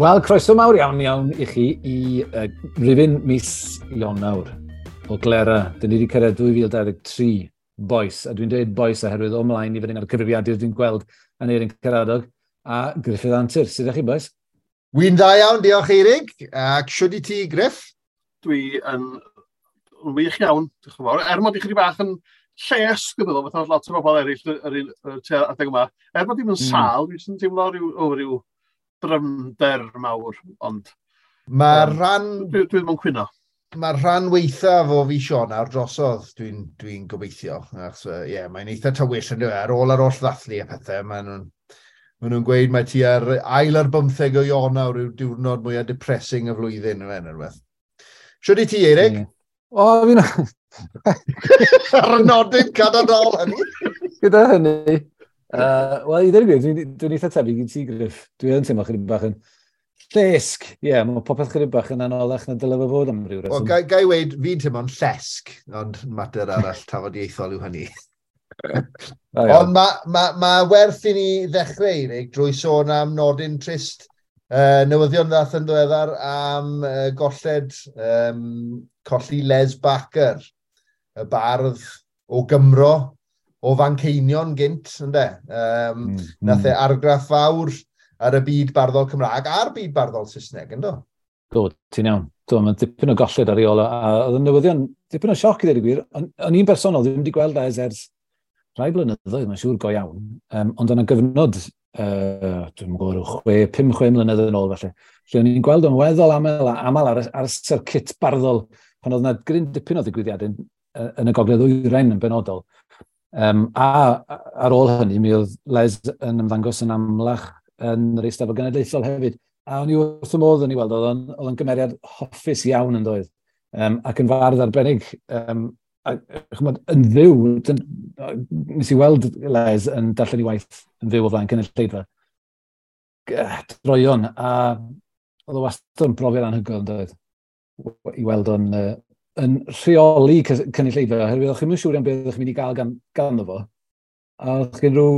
Wel, croeso mawr iawn iawn i chi i rifyn mis Ionawr o Glera. Dyn ni wedi cyrraedd 2023, boys. A dwi'n dweud boys oherwydd o mlaen i fyny ar y cyfrifiadur dwi'n gweld Aneirin Karadog a Gruffydd Antur. Sut ydych chi, boys? Wy'n dda iawn, diolch Eirig. Ac siwd i ti, Griff? Dwi yn wych iawn, diolch yn fawr. Er mod i chydig bach yn llesg, dwi'n meddwl, fatha lot o bobl eraill yr un adeg yma. Er mod i'm yn sâl, dwi'n teimlo rhyw drymder mawr, ond Mae'r rhan dwi ddim yn cwyno. Mae'r rhan weithaf o fis Ionawr drosodd, dwi gobeithio. Achos, ie, yeah, mae'n eitha tywyll yn dweud, ar ôl ar oll ddathlu a pethau, maen nhw'n gweud mae ti ar ail ar 15 o Ionawr yw'r diwrnod mwyaf depressing y flwyddyn, yw e, rhywbeth. Siwd i ti, Eirig? Yeah. O, fi'n Ar y nodyn cadarnhaol hynny. Gyda hynny. Wel, i ddweud y gwir, dwi'n eitha tebyg i ti, Griff. Dwi yn teimlo chydig bach yn llesg. Ie, yeah, mae popeth chydig bach yn anoddach na dyle fe fod am ryw reswm. Wel, ga i weud, fi'n teimlo'n llesg, ond mater arall tafodieithol yw hynny. Ond mae ma werth i ni ddechrau, Eirig, drwy sôn am nodyn trist. Newyddion ddath yn ddiweddar am golled, colli Les Barker, y bardd o Gymro, o Fanceinion gynt, ynde? Nath e argraff fawr ar y byd barddol Cymraeg a'r byd barddol Saesneg, yndo? Do, ti'n iawn. Do, mae'n dipyn o golled ar ei ôl. A oedd y newyddion, dipyn o sioc i ddweud y gwir. O'n i'n bersonol ddim wedi gweld Les ers rhai blynyddoedd, mae'n siŵr go iawn. Ond yna gyfnod, dwi'n gwybod, rhyw 5, 6 mlynedd yn ôl falle, lle o'n i'n gweld o'n weddol aml ar y circuit barddol, pan oedd yna gryn dipyn o ddigwyddiadau yn y Gogledd Ddwyrain yn benodol. A ar ôl hynny, mi oedd Les yn ymddangos yn amlach yn yr Eisteddfod Genedlaethol hefyd. A o'n i wrth y modd yn ei weld, oedd o'n gymeriad hoffus iawn yn doedd. Ac yn fardd arbennig, a, ch'mod, yn fyw, nes i weld Les yn darllen ei waith yn fyw o flaen cynulleidfa. Droion, a oedd o wastad yn brofiad anhygoel yn doedd, i weld o'n yn rheoli cynulleidfa, oherwydd o'ch chi'n siŵr iawn beth o'ch chi'n mynd i gael ganddo fo. A o'ch chi'n rhyw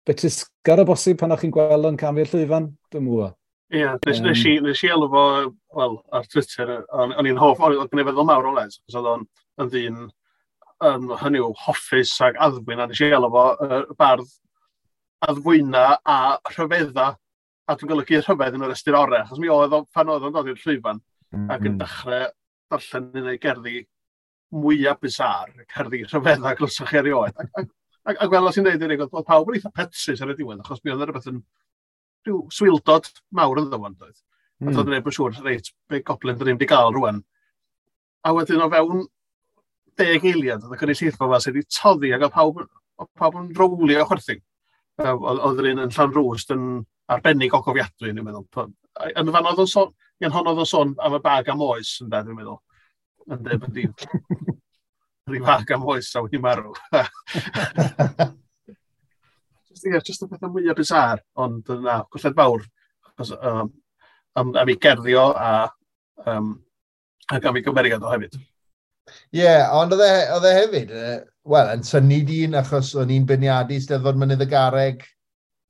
betrusgar o bosib pan o'ch chi'n gweld o'n camu'r llwyfan, dwi'n gwybod. Ie, yeah, nes i alw fo, wel, ar Twitter, o'n i'n hoff, o'n gen i feddwl mawr o Les, achos oedd o'n yn ddyn, hynny yw, hoffus ac addfwyn, a nes i alw fo bardd addfwyna a rhyfedda, a dwi'n golygu rhyfedd yn yr ystyr orau, achos mi oedd o, pan oedd o'n dod i'r llwyfan, ac yn dechrau darllen un o'i gerddi mwyaf bizarre, cerddi rhyfedda glywsoch chi erioed. Ac fel o ti'n dweud, Eirig, oedd pawb yn eitha petrus ar y diwedd, achos mi oedd yna rhywbeth yn rhyw swildod mawr ynddo fo, doedd. A doedd neb yn siŵr, reit, be goblin dyn ni'n wedi gael rwan. A wedyn o fewn 10 eiliad, oedd y gynulleidfa fel sydd wedi toddi ac oedd pawb yn rowlio o chwerthin. Oedd yr un yn Llanrwst yn arbennig o gofiadwy, dwi'n meddwl. Yn fan oedd o'n sôn, yn hon oedd o'n sôn am y bag am oes, yn dwi'n meddwl. Yn dweud bod rhyw fag am oes a wedi marw. Just, ie, just y pethau mwyaf bizarre, ond na, colled fawr. Achos, am ei gerddi o ac am ei gymeriad o hefyd. Ie, yeah, ond oedd e hefyd, wel, yn synnu dyn achos o'n i'n beirniadu Steddfod Mynydd y Garreg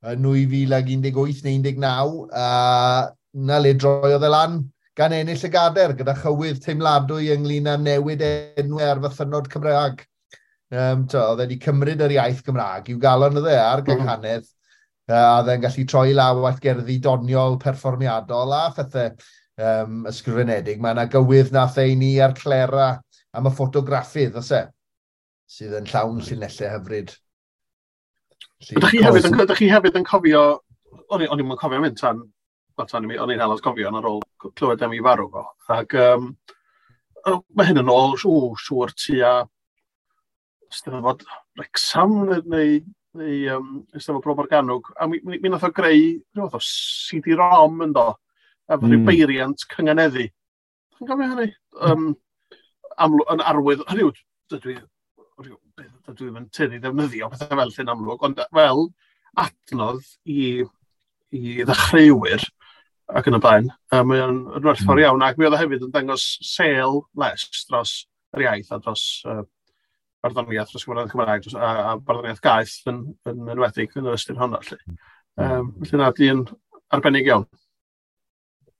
yn 2018 neu 19, a na le droiodd e lan gan ennill y gader gyda chywydd teimladwy ynglyn â newid enwau ar fythynnod Cymraeg. To, oedd e wedi cymryd yr iaith Gymraeg i'w galon oedd e a'r gynghanedd, a oedd e'n gallu troi law at gerddi doniol, perfformiadol a phethau ysgrifenedig. Mae yna gywydd nath ei ni ar Clera am y ffotograffydd, oes e? Sydd yn llawn llinellau hyfryd. Ydych chi hefyd yn cofio, o'n i'n cofio mynd tan, wel, tan i mi, o'n i'n hel cofio ar ôl clywed am ei farw fo. Ac mae hyn yn ôl, siŵr tua Steddfod Wrecsam neu Eisteddfod Bro Morgannwg. A mi nath o greu rhyw fath o CD-ROM yn do, a rhyw beiriant cynganeddu. Chi'n cofio hynny? Yn arwydd, hynny yw, dydw i'm yn tueddu ddefnyddio pethau fel llun amlwg, ond fel adnodd i ddechreuwyr ac yn y blaen, mae o'n yn werthfawr iawn, ac mi oedd o hefyd yn dangos sêl Les dros yr iaith a dros barddoniaeth, dros Gymraeg Cymraeg dros, a barddoniaeth gaeth yn enwedig yn yr ystyr honno. Felly. Felly na, dyn arbennig iawn.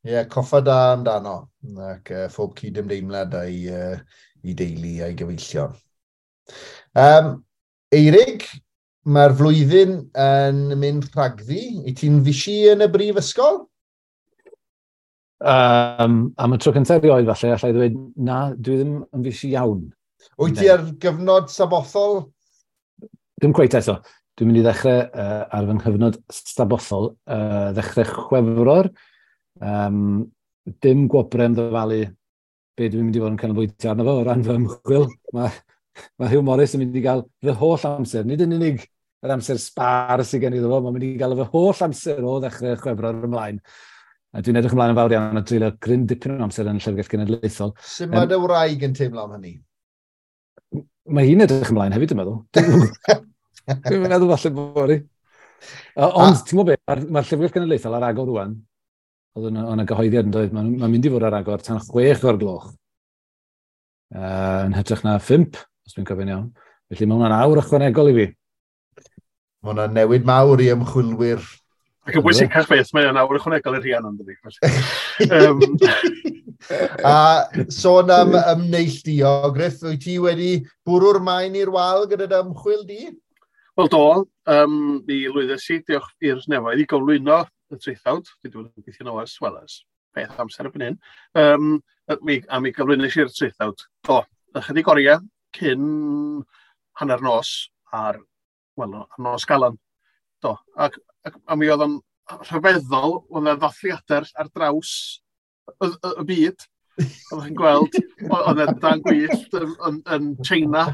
Ie, yeah, coffa da amdano, ac phob cydymdeimlad a'i deulu a'i gyfeillion. Eirig, mae'r flwyddyn yn mynd rhagddi. I ti'n fishi yn y brifysgol? Am y tro cyntaf erioed falle, allai ddweud, na, dwi ddim yn fishi iawn. Wyt ti ar gyfnod sabothol? Dim cweit eto. Dwi'n mynd i ddechrau ar fy nghyfnod sabothol, ddechrau Chwefror. Dim gwobrau am ddyfalu be dwi'n mynd i fod yn canolbwyntio arno fo o ran fy ymchwil. Mae Hugh Morris yn mynd i gael fy holl amser, nid yn unig yr amser sbar sydd gen i iddo fo, mae'n mynd i gael fy holl amser o ddechrau Chwefror ymlaen. A dwi'n edrych ymlaen yn fawr iawn a dreulio gryn dipyn o amser yn y Llyfrgell Genedlaethol. Sut mae dy wraig yn teimlo am hynny? Mae hi'n edrych ymlaen hefyd, dwi'n meddwl. Dwi'n meddwl falle bod hi. Ond, ti'n gwybod beth, mae'r Llyfrgell Genedlaethol ar agor rwan. Oedd yna gyhoeddiad yn dweud, mae'n mynd i fod ar agor tan 6:00. Yn hytrach na 5, os dwi'n cofio'n iawn. Felly mae hwnna'n awr ychwanegol i fi. Mae hwnna'n newid mawr i ymchwilwyr. Ac yn bwysicach beth, mae o'n awr ychwanegol i'r Rhiannon, dydi. A sôn am ymneilltuo, Griff, wyt ti wedi bwrw'r maen i'r wal gyda dy ymchwil di? Wel do, mi lwyddes i, diolch i'r nefoedd, i gyflwyno y traethawd. Dwi wedi bod yn gweithio nôl ers, wel, ers peth amser erbyn hyn. A mi gyflwynais i'r traethawd. Do, ychydig oriau cyn hanner nos ar, wel, ar nos Galan. Do, ac a mi oedd o'n rhyfeddol, oedd yna ddathliadau ar draws y byd. Oeddech chi'n gweld, oedd yna dan gwyllt yn China,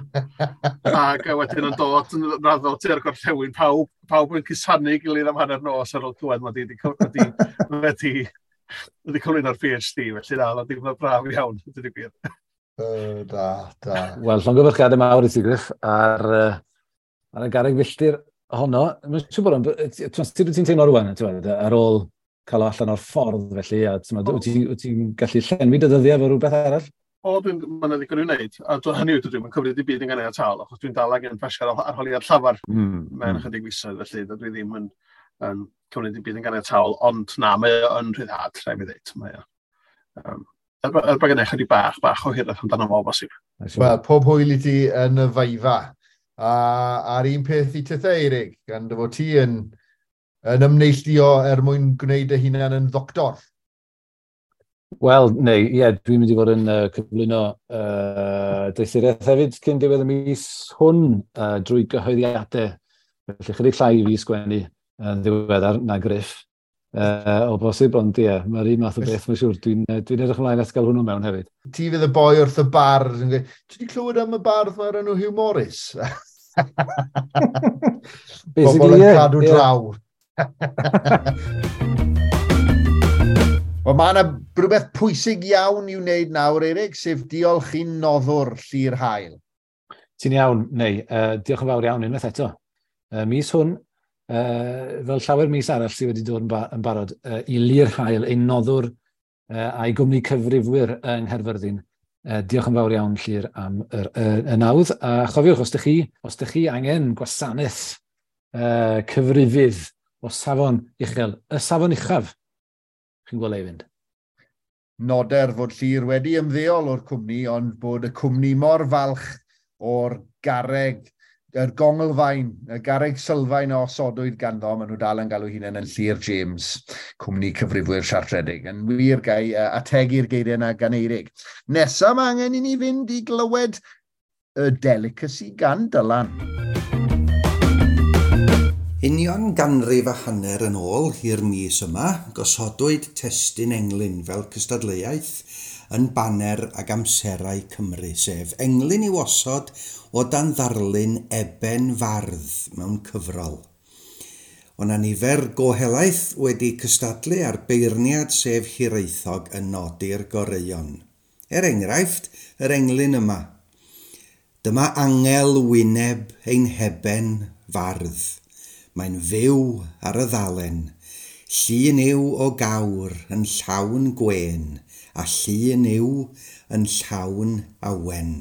ac wedyn yn dod yn raddol tua'r gorllewin, pawb yn cusanu gilydd am hanner nos ar ôl clywed mod i wedi cyflwyno'r PhD, felly na, oedd o'n braf iawn, dweud y gwir. Da, da. Wel, llongyfarchiadau mawr i ti, Griff, ar y garreg filltir honno. Mae'n siŵr bod o'n... Sut wyt ti'n teimlo rwan, ar ôl cael o allan o'r ffordd, felly, a wyt ti'n gallu llenwi dy ddyddiau efo rhywbeth arall? O, mae'n ddigon i'w wneud. A hynny yw, dwi'n cymryd i byd yn ganiataol, achos dwi'n dal angen pasio'r arholiad llafar mewn ychydig fisoedd, felly dwi ddim yn cymryd i byd yn ganiataol, ond na, mae o'n rhyddhad, rhaid mi ddweud. Mae o. Er bod genna i chydig bach o hiraeth amdano fo, bosib. Wel, pob hwyl i ti yn y viva. A a'r un peth i tithe, Eirig, gan dy fod ti yn ymneilltuo er mwyn gwneud dy hunan yn ddoctor. Wel, neu, ie, dwi'n mynd i fod yn cyflwyno doethuriaeth hefyd cyn diwedd y mis hwn drwy gyhoeddiadau. Felly chydig llai i fi sgwennu yn ddiweddar na Griff o bosib, ond ie, mae'r un math o beth, mae'n siŵr. Dwi'n edrych ymlaen at gael hwnnw mewn hefyd. Ti fydd y boi wrth y bardd yn gweud, ti wedi clywed am y bardd mae'r enw Hugh Morris? Bobl yn cadw draw. Wel, mae yna rhywbeth pwysig iawn i'w wneud nawr, Eirig, sef diolch i'n noddwr Llyr Hael. Ti'n iawn, neu, diolch yn fawr iawn unwaith eto. Mis hwn, fel llawer mis arall sydd wedi dod yn barod, i Llyr Hael, ein noddwr a'i gwmni cyfrifwyr yng Nghaerfyrddin. Diolch yn fawr iawn, Llyr, am y nawdd. A chofiwch, os ydych chi angen gwasanaeth cyfrifydd o safon uchel, y safon uchaf, chi'n gweld ei fynd. Noder fod Llyr wedi ymddeol o'r cwmni, ond bod y cwmni mor falch o'r garreg, yr gonglfaen, y garreg sylfaen a osodwyd ganddo, maen nhw dal yn galw hunain yn Llyr James, cwmni cyfrifwyr siartredig. Yn wir, gai ategu'r geiriau yna gan Eirig. Nesa mae angen i ni fynd i glywed y delicacy gan Dylan. Union 150 yn ôl i'r mis yma, gosodwyd testun englyn fel cystadleuaeth yn baner ag amserau Cymru, sef englyn i'w osod o dan ddarlun Eben Fardd mewn cyfrol. O'na nifer go helaeth wedi cystadlu ar beirniad sef Hiraethog yn nodi'r goreuon. Er enghraifft, yr englyn yma. Dyma angel wyneb ein Eben Fardd. Mae'n fyw ar y ddalen, llun yw o gawr yn llawn gwên, a llun yw yn llawn awen.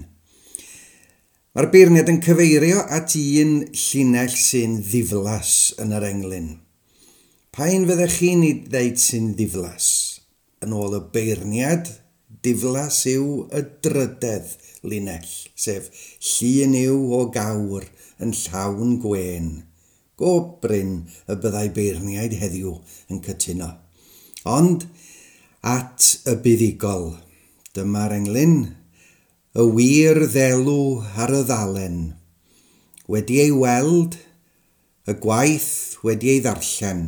Mae'r beirniad yn cyfeirio at un llinell sy'n ddiflas yn yr englyn. Pa un fyddech chi'n ei ddeud sy'n ddiflas? Yn ôl y beirniad, diflas yw y drydedd linell, sef llun yw o gawr yn llawn gwên. Go brin y byddai beirniaid heddiw yn cytuno. Ond at y buddugol, dyma'r englyn, y wir ddelw ar y ddalen. Wedi ei weld, y gwaith wedi ei ddarllen.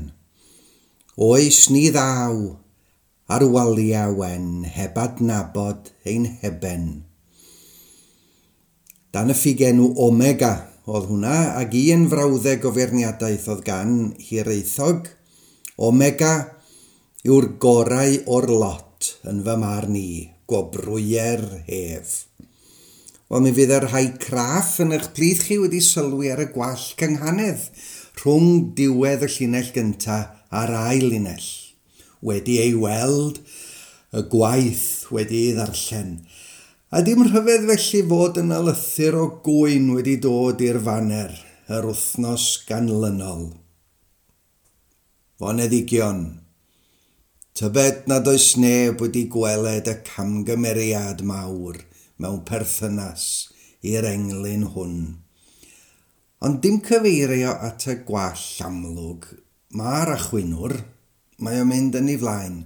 Oes ni ddaw ar waliau wen heb adnabod ein heben. Dan y ffugenw Omega oedd hwnna, ac un frawddeg o feirniadaeth oedd gan Hiraethog. Omega yw'r gorau o'r lot yn fy marn i, gwobrwyer hef. Wel, mi fydd y rhai craff yn eich plith chi wedi sylwi ar y gwall cynghanedd rhwng diwedd y llinell gyntaf a'r ail linell. Wedi ei weld, y gwaith wedi ei ddarllen. A dim rhyfedd felly fod yna lythyr o gŵyn wedi dod i'r faner yr wythnos ganlynol. Foneddigion, tybed nad oes neb wedi gweled y camgymeriad mawr mewn perthynas i'r englyn hwn. Ond dim cyfeirio at y gwall amlwg, mae'r achwynwr, mae o'n mynd yn ei flaen.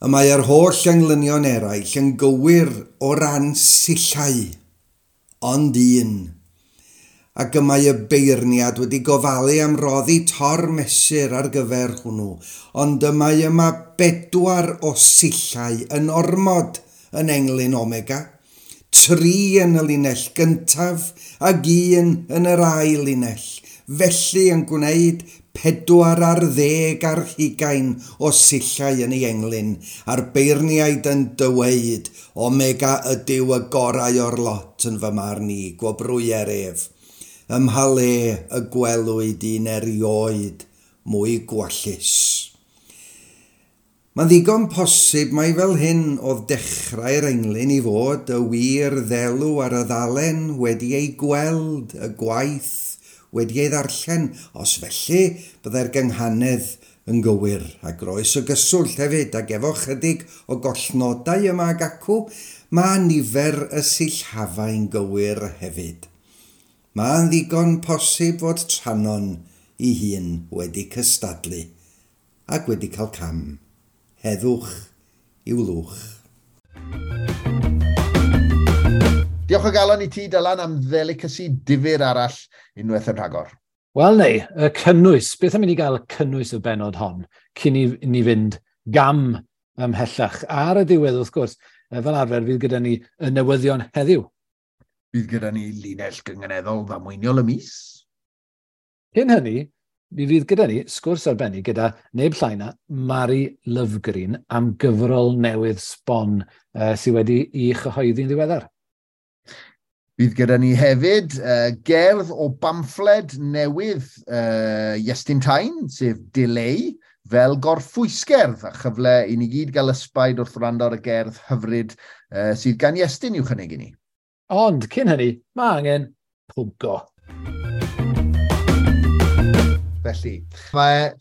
Y mae'r holl englynion eraill yn gywir o ran sillau, ond un. Ac y mae y beirniad wedi gofalu am roddi tor mesur ar gyfer hwnnw, ond y mae yma 4 o sillau yn ormod yn englyn Omega, 3 yn y linell gyntaf ac 1 yn yr ail linell, felly yn gwneud 24 o sillau yn ei englyn, a'r beirniaid yn dyweud, Omega ydyw y gorau o'r lot yn fy marn i, gwobrwyer ef. Ym mha le y gwelwyd un erioed mwy gwallus. Mae'n ddigon posib mai fel hyn oedd dechrau'r englyn i fod, y wir ddelw ar y ddalen wedi ei gweld, y gwaith wedi ei ddarllen. Os felly, byddai'r gynghanedd yn gywir, a groes o gyswllt hefyd, ac efo chydig o gollnodau yma ag acw, mae nifer y sillafau'n gywir hefyd. Mae'n ddigon posib fod Trannon ei hun wedi cystadlu ac wedi cael cam. Heddwch i'w lwch. Diolch o galon i ti, Dylan, am ddelicacy difyr arall unwaith yn rhagor. Wel, neu, y cynnwys. Beth am i ni gael y cynnwys y bennod hon cyn i ni fynd gam ymhellach? Ar y diwedd, wrth gwrs, fel arfer, fydd gyda ni y newyddion heddiw. Bydd gyda ni linell gynganeddol ddamweiniol y mis. Cyn hynny, mi fydd gyda ni sgwrs arbennig gyda neb llai na Mari Lovgreen am gyfrol newydd sbon sydd wedi ei chyhoeddi'n ddiweddar. Bydd gyda ni hefyd gerdd o bamffled newydd Iestyn Tyne, sef Delay, fel gorffwysgerdd, a chyfle i ni gyd gael ysbaid wrth wrando ar y gerdd hyfryd sydd gan Iestyn i'w chynnig i ni. Ond cyn hynny, mae angen pwgo. Felly, mae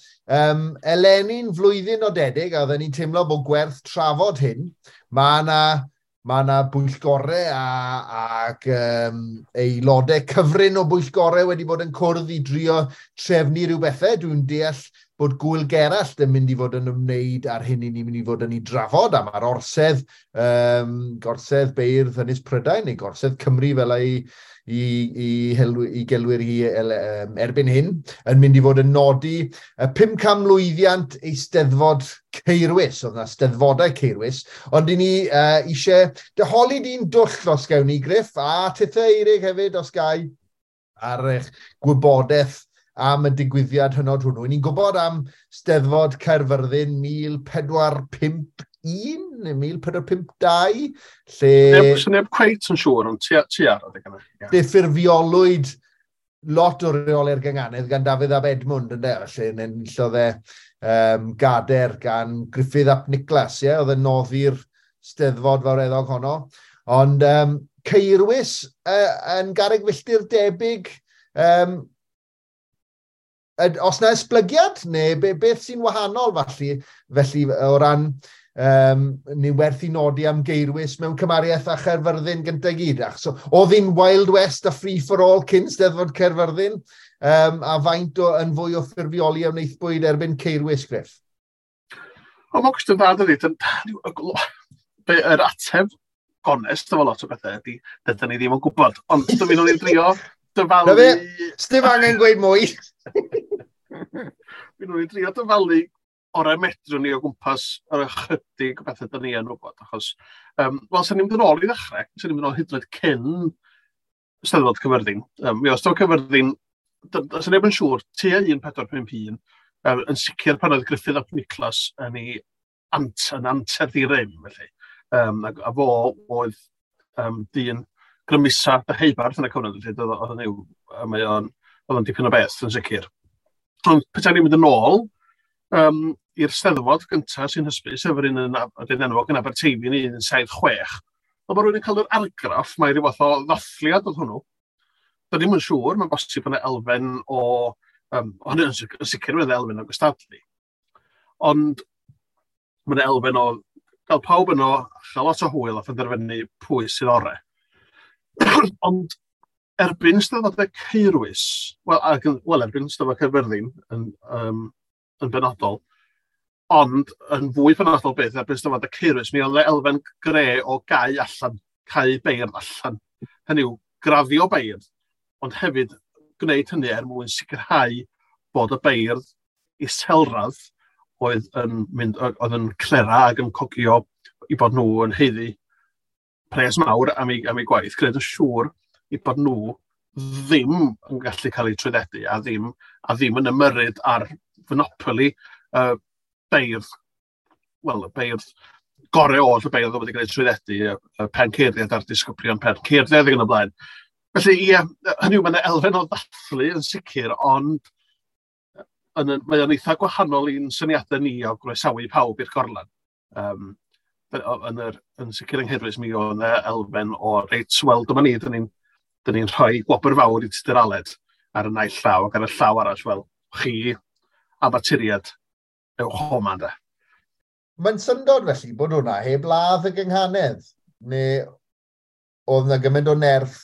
eleni'n flwyddyn nodedig, a oedden ni'n teimlo bod gwerth trafod hyn. Mae yna bwyllgorau ac aelodau cyfrin o bwyllgorau wedi bod yn cwrdd i drio trefnu rhyw bethau. Dwi'n deall bod Gŵyl Gerallt yn mynd i fod yn ymwneud â'r hyn i ni'n mynd i fod yn ei drafod, a mae'r orsedd, gorsedd beirdd Ynys Prydain, neu gorsedd Cymru fel ei i gelwir hi erbyn hyn, yn mynd i fod yn nodi y 500 mlwyddiant Eisteddfod Caerwys. Oedd yna Steddfodau Caerwys, ond i ni eisiau dyholi di'n dwll os gawn ni, Griff, a tithe Eirig hefyd os gai, ar eich gwybodaeth am y digwyddiad hynod hwnnw. Ni'n gwybod am Steddfod Caerfyrddin 1451 neu 1452, lle... Neb cweit yn siŵr, ond ti ar adeg yna. Lle ffurfiolwyd lot o reolau'r gynganedd gan Dafydd ab Edmund, ynde? Lle enillodd e gader gan Gruffydd ap Niclas, ie? Oedd yn noddi'r Steddfod fawreddog honno. Ond Caerwys yn garreg filltir debyg, Os na esblygiad, neu beth sy'n wahanol felly o ran ni werth i nodi am Geirwys mewn cymariaeth â Chaerfyrddin gyntaf gyd. So, oedd hi'n Wild West a Free for All cyn Steddfod Caerfyrddin, a faint o, yn fwy o ffurfioli a wnaethbwyd erbyn Ceirwys, Griff? O, mae'n cwestiwn dda, dydy. Yr ateb gonest efo lot o bethau ydy, dydyn ni ddim yn gwybod. Ond dwi'n mynd i'n drio dyfalu. Na fe, sdim angen gweud mwy. Fi'n nhw'n drio dyfalu orau medrwn ni o gwmpas yr ychydig o bethau dyn ni yn wybod. Achos, wel, sy'n ni'n mynd yn ôl i ddechrau, sy'n ni'n mynd yn ôl hyd yn oed cyn Steddfod Cyfyrddin. Mi oedd Steddfod Cyfyrddin, sy'n neb yn siŵr, tua 1451, yn sicr pan oedd Gruffydd ap Niclas yn ei yn anterth i rym, felly. A fo oedd dyn grymusa Deheubarth yn y cyfnod, felly oedd yn yw, mae o'n, oedd o'n dipyn o beth yn sicr. Ond petai ni'n mynd yn ôl i'r Steddfod gyntaf sy'n hysbys, sef yr un yn, yr un enwog yn Aberteifi yn 1976, ond mae rhywun yn cael yr argraff, mae rhyw fath o ddathliad oedd hwnnw. Da ni'm yn siŵr, mae'n bosib bod yna elfen o, hynny yn sicr mae'n elfen o gystadlu. Ond mae'n elfen o gael pawb yno, chael lot o hwyl a phenderfynu pwy sydd orau. Ond erbyn Steddfodau Caerwys, wel, erbyn Steddfod Caerfyrddin yn benodol, ond yn fwy penodol beth, erbyn Steddfodau Caerwys, mi oedd elfen gre o gau allan, cau beirdd allan. Hynny yw, graddio beirdd, ond hefyd gwneud hynny er mwyn sicrhau bod y beirdd iselradd oedd yn mynd, oedd yn clera ac yn cogio i bod nhw yn haeddu pres mawr am ei gwaith, gwneud yn siŵr i bod nhw ddim yn gallu cael eu trwyddedu a ddim yn ymyrryd ar fonopoli beirdd, wel, y beirdd gorau oll, y beirdd oedd wedi cael eu trwyddedu, y penceirdiad a'r disgyblion penceirdiad ac yn y blaen. Felly, ie, hynny yw, mae'n elfen o ddathlu yn sicr, ond mae o'n eitha gwahanol i'n syniadau ni o groesawu pawb i'r gorlan. Yn sicr yng Nghaerwys, mi oedd yna elfen o, reit, wel, dyma ni, dyn ni rhoi gwobr fawr i Tudur Aled ar y naill llaw, ac ar y llaw arall, wel, chi amaturiad, ewch homa, de. Mae'n syndod felly bod hwnna heb ladd y gynghanedd, neu oedd yna gymaint o nerth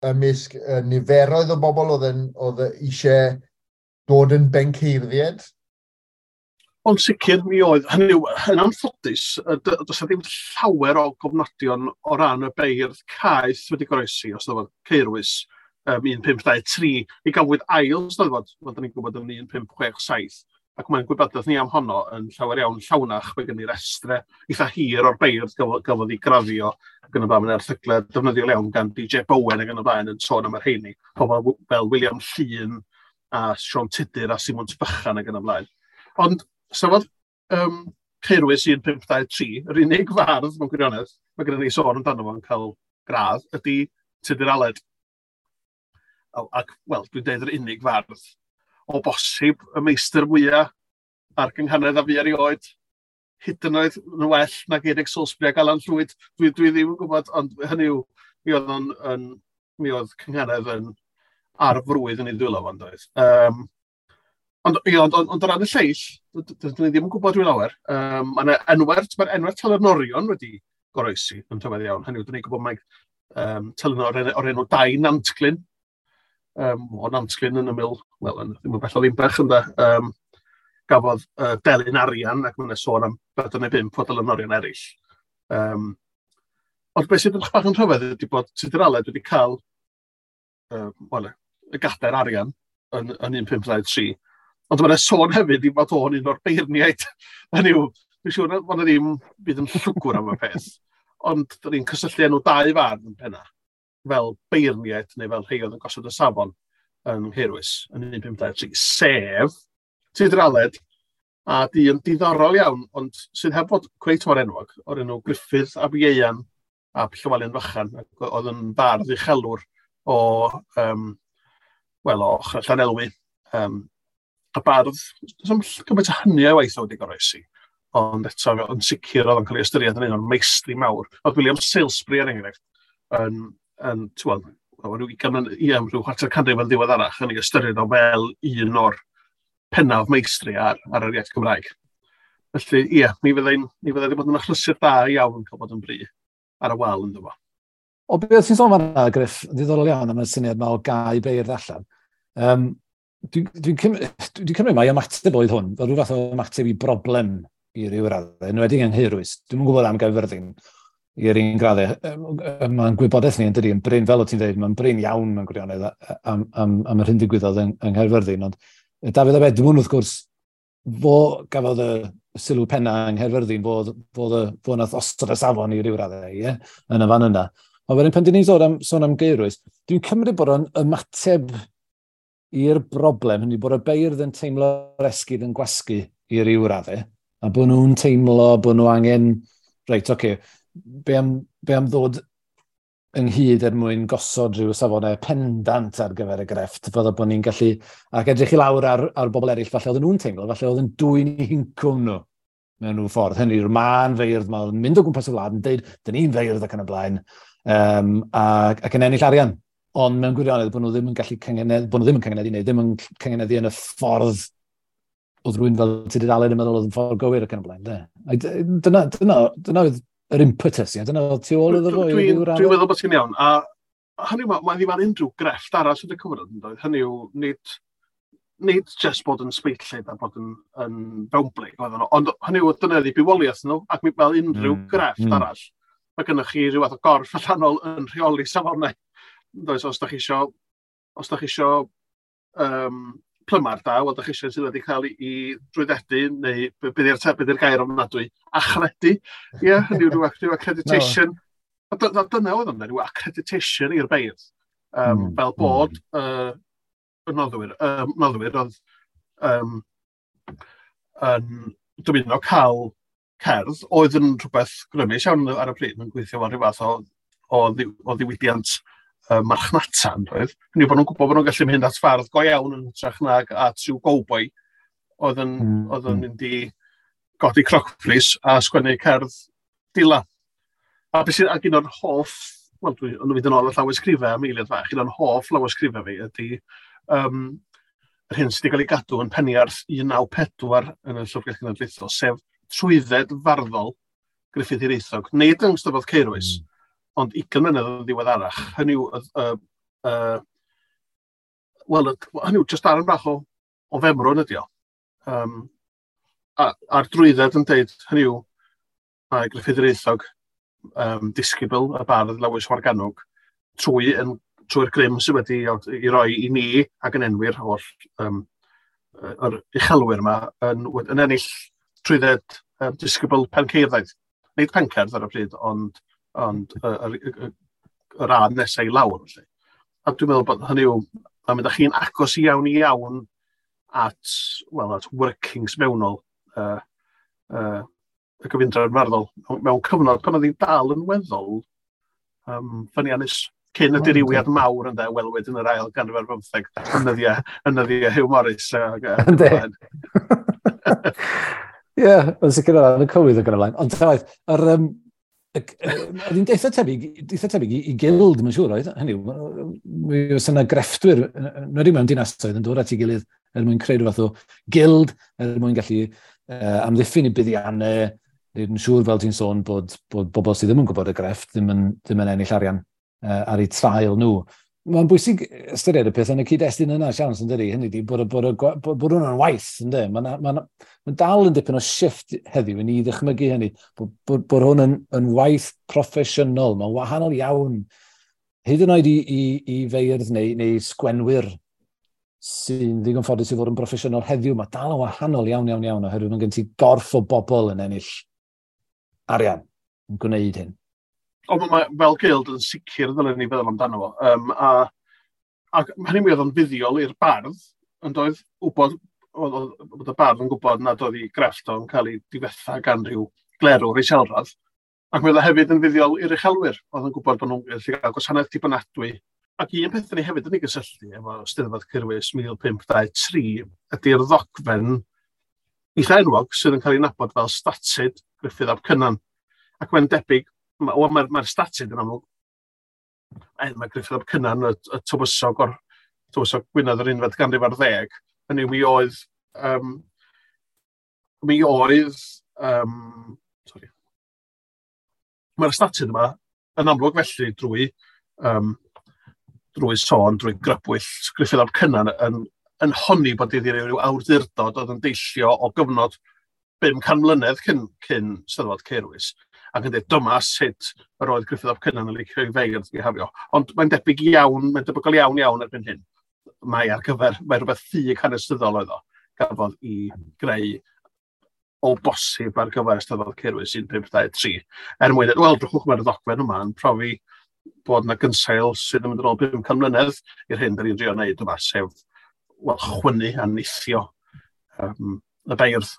ymysg niferoedd o bobl oedd eisiau dod yn benceirdiad? Ond sicr mi oedd, hynny yw, yn anffodus, does 'na ddim llawer o gofnodion o ran y beirdd caeth wedi goroesi, os oedd Caerwys 1523. Mi gafwyd ail steddfod, fel da ni'n gwybod, yn 1567, ac mae'n gwybodaeth ni am honno yn llawer iawn llawnach. Mae gen i restre eitha hir o'r beirdd gafodd ei graddio ac yn y blaen. Mae'n erthyglau defnyddiol iawn gan DJ Bowen ac yn y blaen yn sôn am yr rheini. Pobl fel William Llun a Siôn Tudur a Simon Bychan ac yn y blaen. Ond Steddfod Caerwys 1523, yr unig fardd mewn gwirionedd, mae gennym ni sôn amdano fo'n cael gradd, ydy Tudur Aled. Ac, wel, dwi'n deud yr unig fardd, o bosib y meistr mwyaf ar gynghanedd a fi erioed, hyd yn oed yn well nag Eric Salisbury ac Alan Llwyd. Dwi ddim yn gwybod, ond hynny yw, mi oedd cynghanedd yn ar frwydd yn ei ddwylo fo'n doedd. Ond, ie, ond o ran y lleill, dydyn ni ddim yn gwybod rhyw lawer. Mae'r enwau telynorion wedi goroesi yn rhyfedd iawn. Hynny yw, dyn ni'n gwybod mai telynor o'r enw Dai Nantglyn, o Nantglyn yn ymyl, wel, ddim yn bell o Ddinbych, ynde, gafodd delyn arian, ac mae'n sôn am bedwar neu bump o delynorion eraill. Ond beth sydd yn bach yn rhyfedd ydy bod Tudur Aled wedi cael wel, y gadair arian yn 1523. Ond mae'n sôn hefyd i fod o'n un o'r beirniaid. Hynny yw, dwi'n siŵr bod yna ddim byd yn llwgwr am y peth. Ond dyn ni'n cysylltu enw dau fardd yn penna, fel beirniaid neu fel rhai oedd yn gosod y safon yn Nghaerwys yn 1523, sef Tudur Aled a dyn diddorol iawn, ond sydd heb fod cweit mor enwog, o'r enw Gruffydd ab Ieuan ap Llywelyn Fychan, ac oedd yn fardd uchelwr o, wel, o ochr Llanelwy. A bardd, does 'am gymaint o hynny o waith o wedi goroesi, ond eto yn sicr oedd o'n cael ei ystyried yn un o'r meistri mawr. Oedd William Salesbury, er enghraifft, yn t'wod, rhyw 20, ie, rhyw chwarter canrif yn ddiweddarach yn ei ystyried o fel un o'r pennaf meistri ar yr iaith Gymraeg. Felly, ie, mi fyddai wedi bod yn achlysur da iawn cael bod yn bri ar y wal ynddo fo. O beth ti'n sôn fan'na, Griff, ddiddorol iawn am y syniad yma o gau beirdd allan. Dwi cymryd mai ymateb oedd hwn, fel rhyw fath o ymateb i broblem i ryw raddau, yn enwedig yng Nghaerwys. Dwi'm yn gwybod am Gaerfyrddin i'r un graddau. Mae'n gwybodaeth ni yn dydi, yn brin, fel o ti'n dweud, mae'n brin iawn mewn gwirionedd am yr hyn digwyddodd yng Nghaerfyrddin. Ond Dafydd ab Edmwnd, wrth gwrs, fo gafodd y sylw penna yng Nghaerfyrddin, fo nath osod y safon i ryw raddau, ie, yn y fan yna. Ond wedyn pan dyn ni'n sôn am Gaerwys, dwi'n cymryd bod o'n ymateb i'r broblem, hynny bod y beirdd yn teimlo'r esgid yn gwasgu i ryw raddau, a bod nhw'n teimlo bod nhw angen, reit, oce, okay, be am ddod ynghyd er mwyn gosod rhyw safonau pendant ar gyfer y grefft, fydda bod ni'n gallu, ac edrych i lawr ar bobl eraill, falle oedden nhw'n teimlo, falle oedd yn dwyn i hincwm nhw mewn rhyw ffordd. Hynny yw'r mân feirdd, mae'n mynd o gwmpas y wlad yn deud, "Dyn ni'n feirdd" ac yn y blaen, ac yn ennill arian. Ond mewn gwirionedd, bod nhw ddim yn gallu cyngenedd, bod nhw ddim yn cyngeneddu, neu ddim yn cyngeneddu yn y ffordd oedd rhywun fel Tudur Aled yn meddwl oedd yn ffordd gywir ac yn y blaen. De. Dyna oedd yr impetus, ie? Dyna oedd tu ôl iddo fo. Dwi'n dwi meddwl bod ti'n iawn. A hynny yw, mae ddim ar unrhyw grefft arall yn y cyfnod, yn doedd? Hynny yw, nid just bod yn sbeitlyd a bod yn fewnblyg, oedden nhw, ond hynny yw, dyna ydi bywoliaeth nhw, ac fel unrhyw grefft arall, mae gennych chi rhyw fath o gorff allanol yn rheoli safonau. Does, os da chi isio plymar da, wel, da chi isio sydd wedi cael ei drwyddedu, neu be di'r gair ofnadwy, achredu, ie, yeah, hynny yw rhyw accreditation. No. A dyna oedd o'n rhyw accreditation i'r beirdd. Fel bod y noddwyr oedd yn dymuno cael cerdd, oedd yn rhywbeth grymus iawn ar y pryd, yn gweithio fel rhyw fath o ddiwydiant marchnata, yn doedd. Hynny yw bod nhw'n gwybod bod nhw'n gallu mynd at fardd go iawn yn hytrach nag at rhyw gowboi oedd yn mynd i godi crocbris a sgwennu cerdd dila. A beth sy'n, ac un o'r hoff, wel, dwi'n mynd yn ôl y llawysgrifau am eiliad fach, un o'r hoff lawysgrifau fi ydy yr hyn sydd wedi cael ei gadw yn Peniarth 194 yn y Llyfrgell Genedlaethol, sef trwydded farddol Gruffydd Hiraethog. Nid yng Nghystadleuaeth Caerwys, ond 20 mlynedd yn ddiweddarach. Hynny yw, wel, hynny yw, just darn bach o femrwn ydi o. A'r drwydded yn deud, hynny yw, mae Gruffydd Hiraethog, disgybl y bardd Lewis Morgannwg, trwy'r grym sydd wedi i roi i ni ac yn enwi'r holl yr uchelwyr yma yn ennill trwydded disgybl penceirddaidd. Nid pencerdd ar y pryd, ond yr radd nesau i lawr. Felly. A dwi'n meddwl bod hynny yw, mae'n mynd â chi'n agos iawn iawn at, well, at workings mewnol y gyfundrefn farddol mewn cyfnod pan oedd hi'n dal yn weddol ffyniannus cyn y dirywiad mawr ynddo, welwyd yn yr ail ganrif ar bymtheg yn nyddiau Hugh Morris. Ynddi. Ie, yn sicr o ran y cywydd ac yn y blaen. Ond ta waeth, oedd hi'n eitha tebyg i gild, mae'n siŵr, oedd? Hynny yw, mi oes yna grefftwyr, yn wedi mewn dinasoedd, yn dod at ei gilydd er mwyn creu rhyw fath o gild, er mwyn gallu amddiffyn i buddiannau, wneud yn siŵr, fel ti'n sôn, bod bobl sydd ddim yn gwybod y grefft ddim yn ennill arian ar eu trael nhw. Mae'n bwysig ystyried y peth yn y cyd-destun yna, siawns, yn dydi? Hynny ydi, bod hwnna'n waith, ynddi? Mae'n ma dal yn dipyn o shift heddiw i ni ddychmygu hynny, bod hwn yn waith proffesiynol, mae'n wahanol iawn. Hyd yn oed i feirdd neu sgwenwyr sy'n ddigon ffodus i fod yn broffesiynol heddiw, mae dal yn wahanol iawn, iawn, iawn, oherwydd mae gen ti gorff o bobl yn ennill arian yn gwneud hyn. Ond mae fel gild yn sicr ddylen ni feddwl amdano fo. Ac hynny mi oedd o'n fuddiol i'r bardd, yn doedd wybod, oedd y bardd yn gwybod nad oedd ei grefft o'n cael ei difetha gan rhyw glerwr iselradd. Ac mi oedd o hefyd yn fuddiol i'r uchelwyr, oedd yn gwybod bod nhw'n gallu cael gwasanaeth dibynadwy. Ac un peth ni hefyd yn ei gysylltu efo Steddfod Caerwys 1523 ydy'r ddogfen eitha enwog sydd yn cael ei nabod fel Statud Gruffydd ap Cynan. Ac mae'n debyg, mae'r statud yn amlwg Mae Gruffydd ap Cynan, y tywysog o'r tywysog Gwynedd yr unfed ganrif ar ddeg, hynny mi oedd mi oedd sorry. Mae'r statud yma yn amlwg felly drwy sôn, drwy grybwyll Gruffydd ap Cynan yn honni bod iddi ryw awdurdod oedd yn deillio o gyfnod 500 mlynedd cyn Steddfod Caerwys, ac yn dweud dyma sut yr oedd Gruffydd ap Cynan yn licio i feirdd bihafio. Ond mae'n debyg iawn, mae'n debygol iawn iawn erbyn hyn. Mae ar gyfer, mae rhywbeth ffug hanesyddol oedd o, gafodd i greu o bosib ar gyfer Eisteddfod Caerwys 1523. Er mwyn, wel, drychwch, mae'r ddogfen yma yn profi bod yna gynsail sydd yn mynd yn ôl 500 mlynedd i'r hyn da ni'n drio wneud yma, sef, wel, chwynnu a nithio y beirdd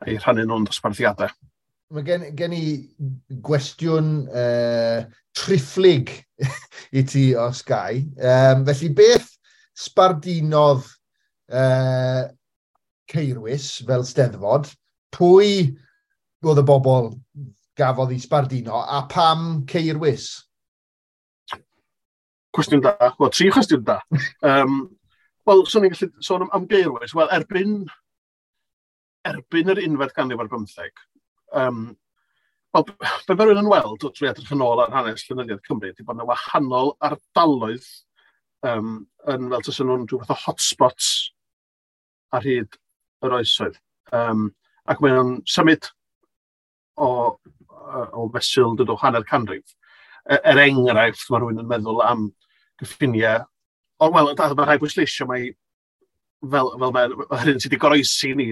a'i rhannu nhw'n dosbarthiadau. Mae gen i gwestiwn triphlyg i ti os gai. Felly beth sbardinodd Caerwys fel steddfod? Pwy oedd y bobl gafodd ei sbardino a pam Caerwys? Cwestiwn da. Wel, tri chwestiwn da. Wel, swn i'n gallu sôn am Gaerwys. Wel, erbyn yr unfed ganrif ar bymtheg, wel, be mae rhywun yn weld drwy edrych yn ôl ar hanes llenyddiaeth Cymru ydy bod yna wahanol ardaloedd yn fel tasen nhw'n rhyw fath o hotspots ar hyd yr oesoedd. Ac mae nhw'n symud o fesul dod o hanner canrif. Er enghraifft, mae rhywun yn meddwl am gyffiniau. O, wel, mae rhaid bwysleisio mai fel mae'r hyn sydd wedi goroesi ni,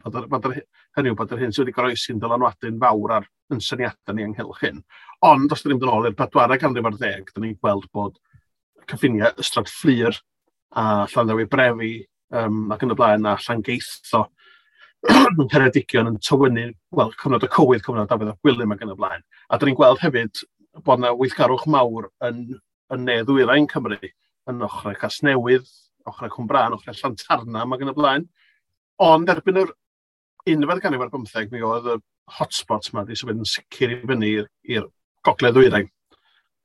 hynny yw bod yr hyn sydd wedi goroesi'n dylanwadu'n fawr ar yn syniadau ni ynghylch hyn. Ond, os ydym ni'n mynd yn ôl i'r bedwaredd ganrif ar ddeg, dyn ni'n gweld bod cyffiniau Ystrad Fflur a Llanddewi Brefi ac yn y blaen a Llangeitho yn Ceredigion yn tywynnu, wel, cyfnod y cywydd, cyfnod Dafydd ap Gwilym ac yn y blaen. A dyn ni'n gweld hefyd bod yna weithgarwch mawr yn ne ddwyrain Cymru, yn ochrau Casnewydd, ochrau Cwmbrân, ochrau Llantarnam ac yn y blaen. Ond erbyn yr unfed ganrif ar bymtheg, mi oedd y hotspots yma wedi symud yn sicr i fyny i'r gogledd ddwyrain.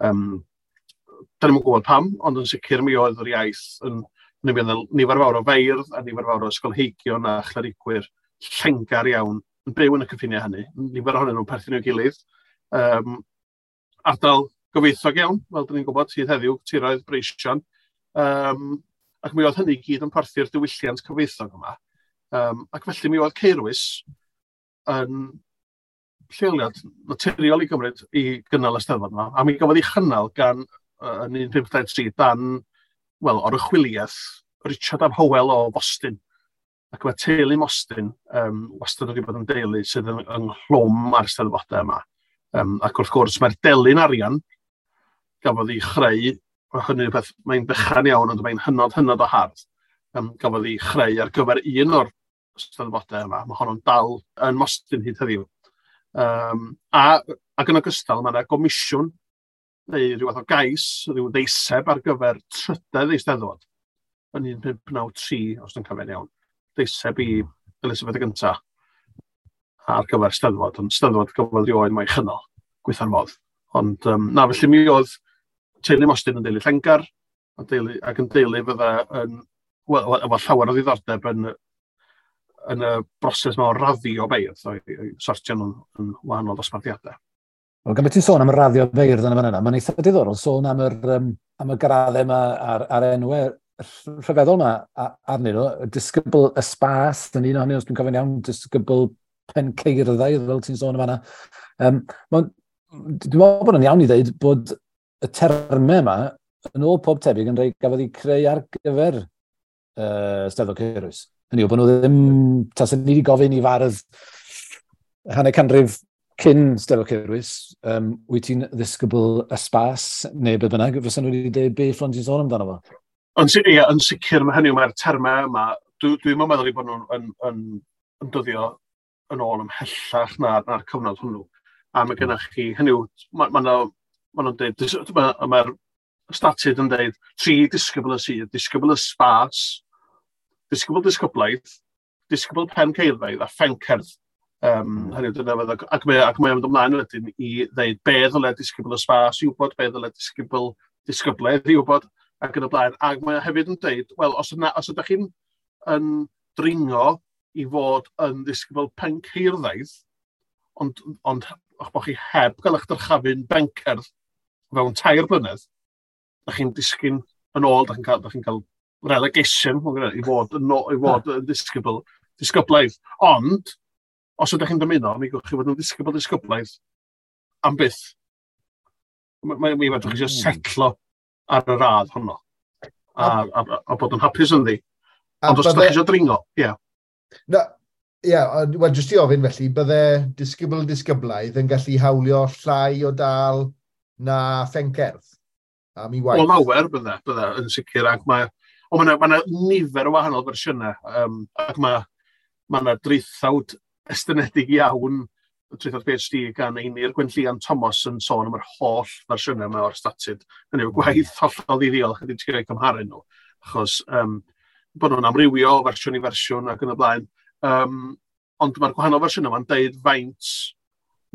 Da ni'm yn gwybod pam, ond yn sicr mi oedd yr iaith yn nifer fawr o feirdd a nifer fawr o ysgolheigion a chlerigwyr llengar iawn yn byw yn y cyffiniau hynny. Nifer ohonyn nhw'n perthyn i'w gilydd. Ardal gyfoethog iawn, fel dyn ni'n gwybod, sydd heddiw, tiroedd breision. Ac mi oedd hynny i gyd yn porthi'r diwylliant cyfoethog yma. Ac felly mi oedd Caerwys yn lleoliad naturiol i gymryd i gynnal y Steddfod yma. A mi gafodd ei chynnal gan yn 1523 dan, wel, oruchwyliaeth Richard ab Hywel o Fostyn. Ac mae teulu Mostyn wastad wedi bod yn deulu sydd ynghlwm â'r Steddfodau yma. Ac wrth gwrs mae'r delyn arian gafodd ei chreu, hynny yw beth, mae'n bychan iawn, ond mae'n hynod, hynod o hardd, gafodd ei chreu ar gyfer un o'r Steddfodau yma. Mae honno'n dal yn Mostyn hyd heddiw. Ac yn ogystal, mae yna gomisiwn neu rhyw fath o gais, rhyw ddeiseb ar gyfer trydedd Eisteddfod yn 1593, os dwi'n cofio'n iawn. Deiseb i Elizabeth y Gyntaf ar gyfer Steddfod, ond Steddfod gafodd rioed mo'i chynnal, gweitha'r modd. Ond na, felly mi oedd teulu Mostyn yn deulu llengar, ac yn deulu fydda yn, wel, efo llawer o ddiddordeb yn y broses yma o raddio beirdd, o'i sortio nhw'n yn wahanol dosbarthiadau. Wel, gan beth ti'n sôn am y raddio beirdd yn y fan yna, mae'n eitha diddorol sôn am y graddau yma a'r enwau rhyfeddol yma arnyn nhw. Disgybl y spas, yn un ohonyn nhw, os dwi'n cofio'n iawn, disgybl penceirddau, fel ti'n sôn am fanna. Dwi'n meddwl bod yn iawn i ddweud bod y termau yma, yn ôl pob tebyg, yn rhai gafodd ei creu ar gyfer Steddfod Caerwys. Hynny yw, bod nhw ddim, tasen ni wedi gofyn i fardd hanner canrif cyn Steddfod Caerwys, wyt ti'n ddisgybl y spas neu be bynnag, fysa nhw wedi dweud beth fflon ti'n sôn amdano fo? Ond ie, yn sicr, mae hynny, mae'r termau yma, dwi'n meddwl eu bod nhw'n yn dyddio yn ôl ymhellach na'r cyfnod hwnnw. A mae gennych chi, hynny yw, ma nhw'n dweud, mae'r statud yn dweud, tri disgybl y sydd, disgybl y spas, disgybl disgyblaeth, disgybl pen ceirfaidd a phencerdd. Hynny yw, dyna fydd, ac mae o'n mynd ymlaen wedyn i ddeud be ddyle disgybl y spas i wybod, be ddyle disgybl disgyblaeth i wybod ac yn y blaen. Ac mae hefyd yn dweud, wel, os, yna, os ydych chi'n yn dringo i fod yn ddisgybl penceirddaidd, ond o'ch bod chi heb gael eich dyrchafu'n bencerdd fewn 3 blynedd, da chi'n disgyn yn ôl, da chi'n cael, da chi'n cael relegation i fod yn, i fod yn ddisgybl, disgyblaidd. Ond, os ydych chi'n dymuno, mi gewch chi fod yn ddisgybl disgyblaidd am byth. Mi fedrwch chi eisiau setlo ar y radd honno a bod yn hapus ynddi. Ond os ydych chi eisiau dringo, ie. Yeah. No, ie, yeah, wel, jyst i ofyn felly, bydde disgybl disgyblaidd yn gallu hawlio llai o dal na phencerdd am ei waith? O lawer bydde yn sicr, ac mae, o, mae yna nifer o wahanol fersiynau, ac mae yna draethawd estynedig iawn, traethawd PhD gan Einir Gwenllian Thomas yn sôn am yr holl fersiynau yma o'r statud. Hynny yw gwaith hollol ddiddiol, chydig ti'n cael cymharu nhw, achos bod nhw'n amrywio o fersiwn i fersiwn ac yn y blaen. Ond mae'r gwahanol fersiynau yma'n deud faint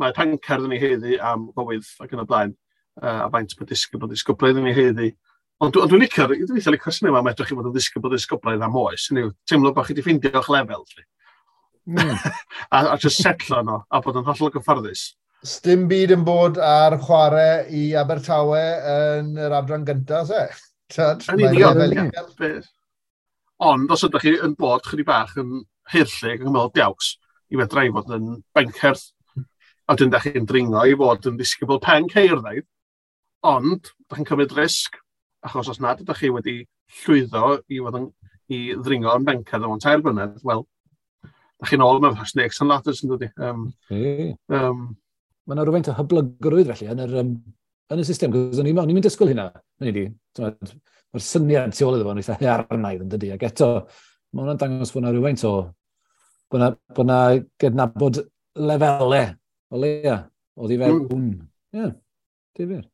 mae pencerdd yn ei haeddu am gywydd ac yn y blaen, a faint mae disgybl disgyblaidd yn ei haeddu. Ond dwi'n licio'r, dwi'n eitha licio'r syniad yma, medrwch chi fod yn ddisgybl disgyblaidd am oes. Hynny yw, teimlo bod chi wedi ffeindio'ch lefel. A just setlo yno, a bod yn hollol gyfforddus. Sdim byd yn bod ar chwarae i Abertawe yn yr adran gyntaf, se? Yn union. Ond os ydych chi yn bod chydig bach yn haerllug ac yn meddwl diaws, i fedra i fod yn bencerdd, a wedyn ydych chi'n dringo i fod yn ddisgybl penceirddaidd, ond ydych chi'n cymryd risg, achos os nad ydych chi wedi llwyddo i fod yn, i ddringo yn bencerdd mewn 3 blynedd, wel, ydych chi'n ôl mewn snakes and ladders yn dod i. Mae yna rhywfaint o hyblygrwydd felly yn yr, yn y system, cos o'n i'n mynd disgwyl hynna. Mae'r syniad tu ôl iddo fo'n eitha haearnaidd yn dydi, ac eto, mae hwnna'n dangos bod yna rhywfaint o, bod yna gydnabod lefelau, o leia, o ddi fewn. Ie, difyr.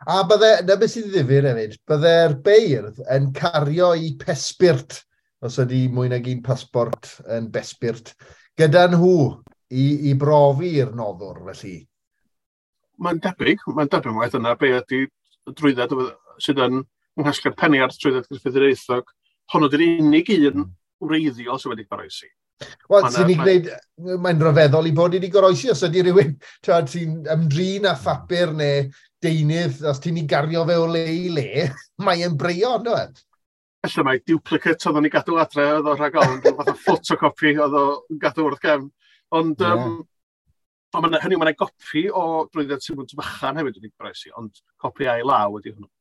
A bydde, na beth sy'n ddifyr hefyd, bydde'r beirdd yn cario i pesbirt, os ydy mwy nag un pasbort yn besbirt, gyda nhw i brofi'r noddwr, felly. Mae'n debyg mae dyna be ydy drwydded sydd yn nghasgliad Peniarth trwydded Gruffydd Hiraethog. Honno ydy'r unig un wreiddiol sydd wedi goroesi. Wel, sy'n ni'n gwneud, mae'n rhyfeddol i bod wedi goroesi, os ydy rhywun ti'n ymdrin â phapur neu deunydd, os ti'n ei gario fe o le i le, mae'n breio, ynddo e? Felly mae duplicate oedd o'n ei gadw adre, oedd o rhag ofn, fath o photocopy oedd o'n gadw wrth gefn. Ond, yeah. Hynny, mae'n gopi o drwydded Simwnt Fychan hefyd wedi goroesi, ond copi a'i law ydy hwnnw.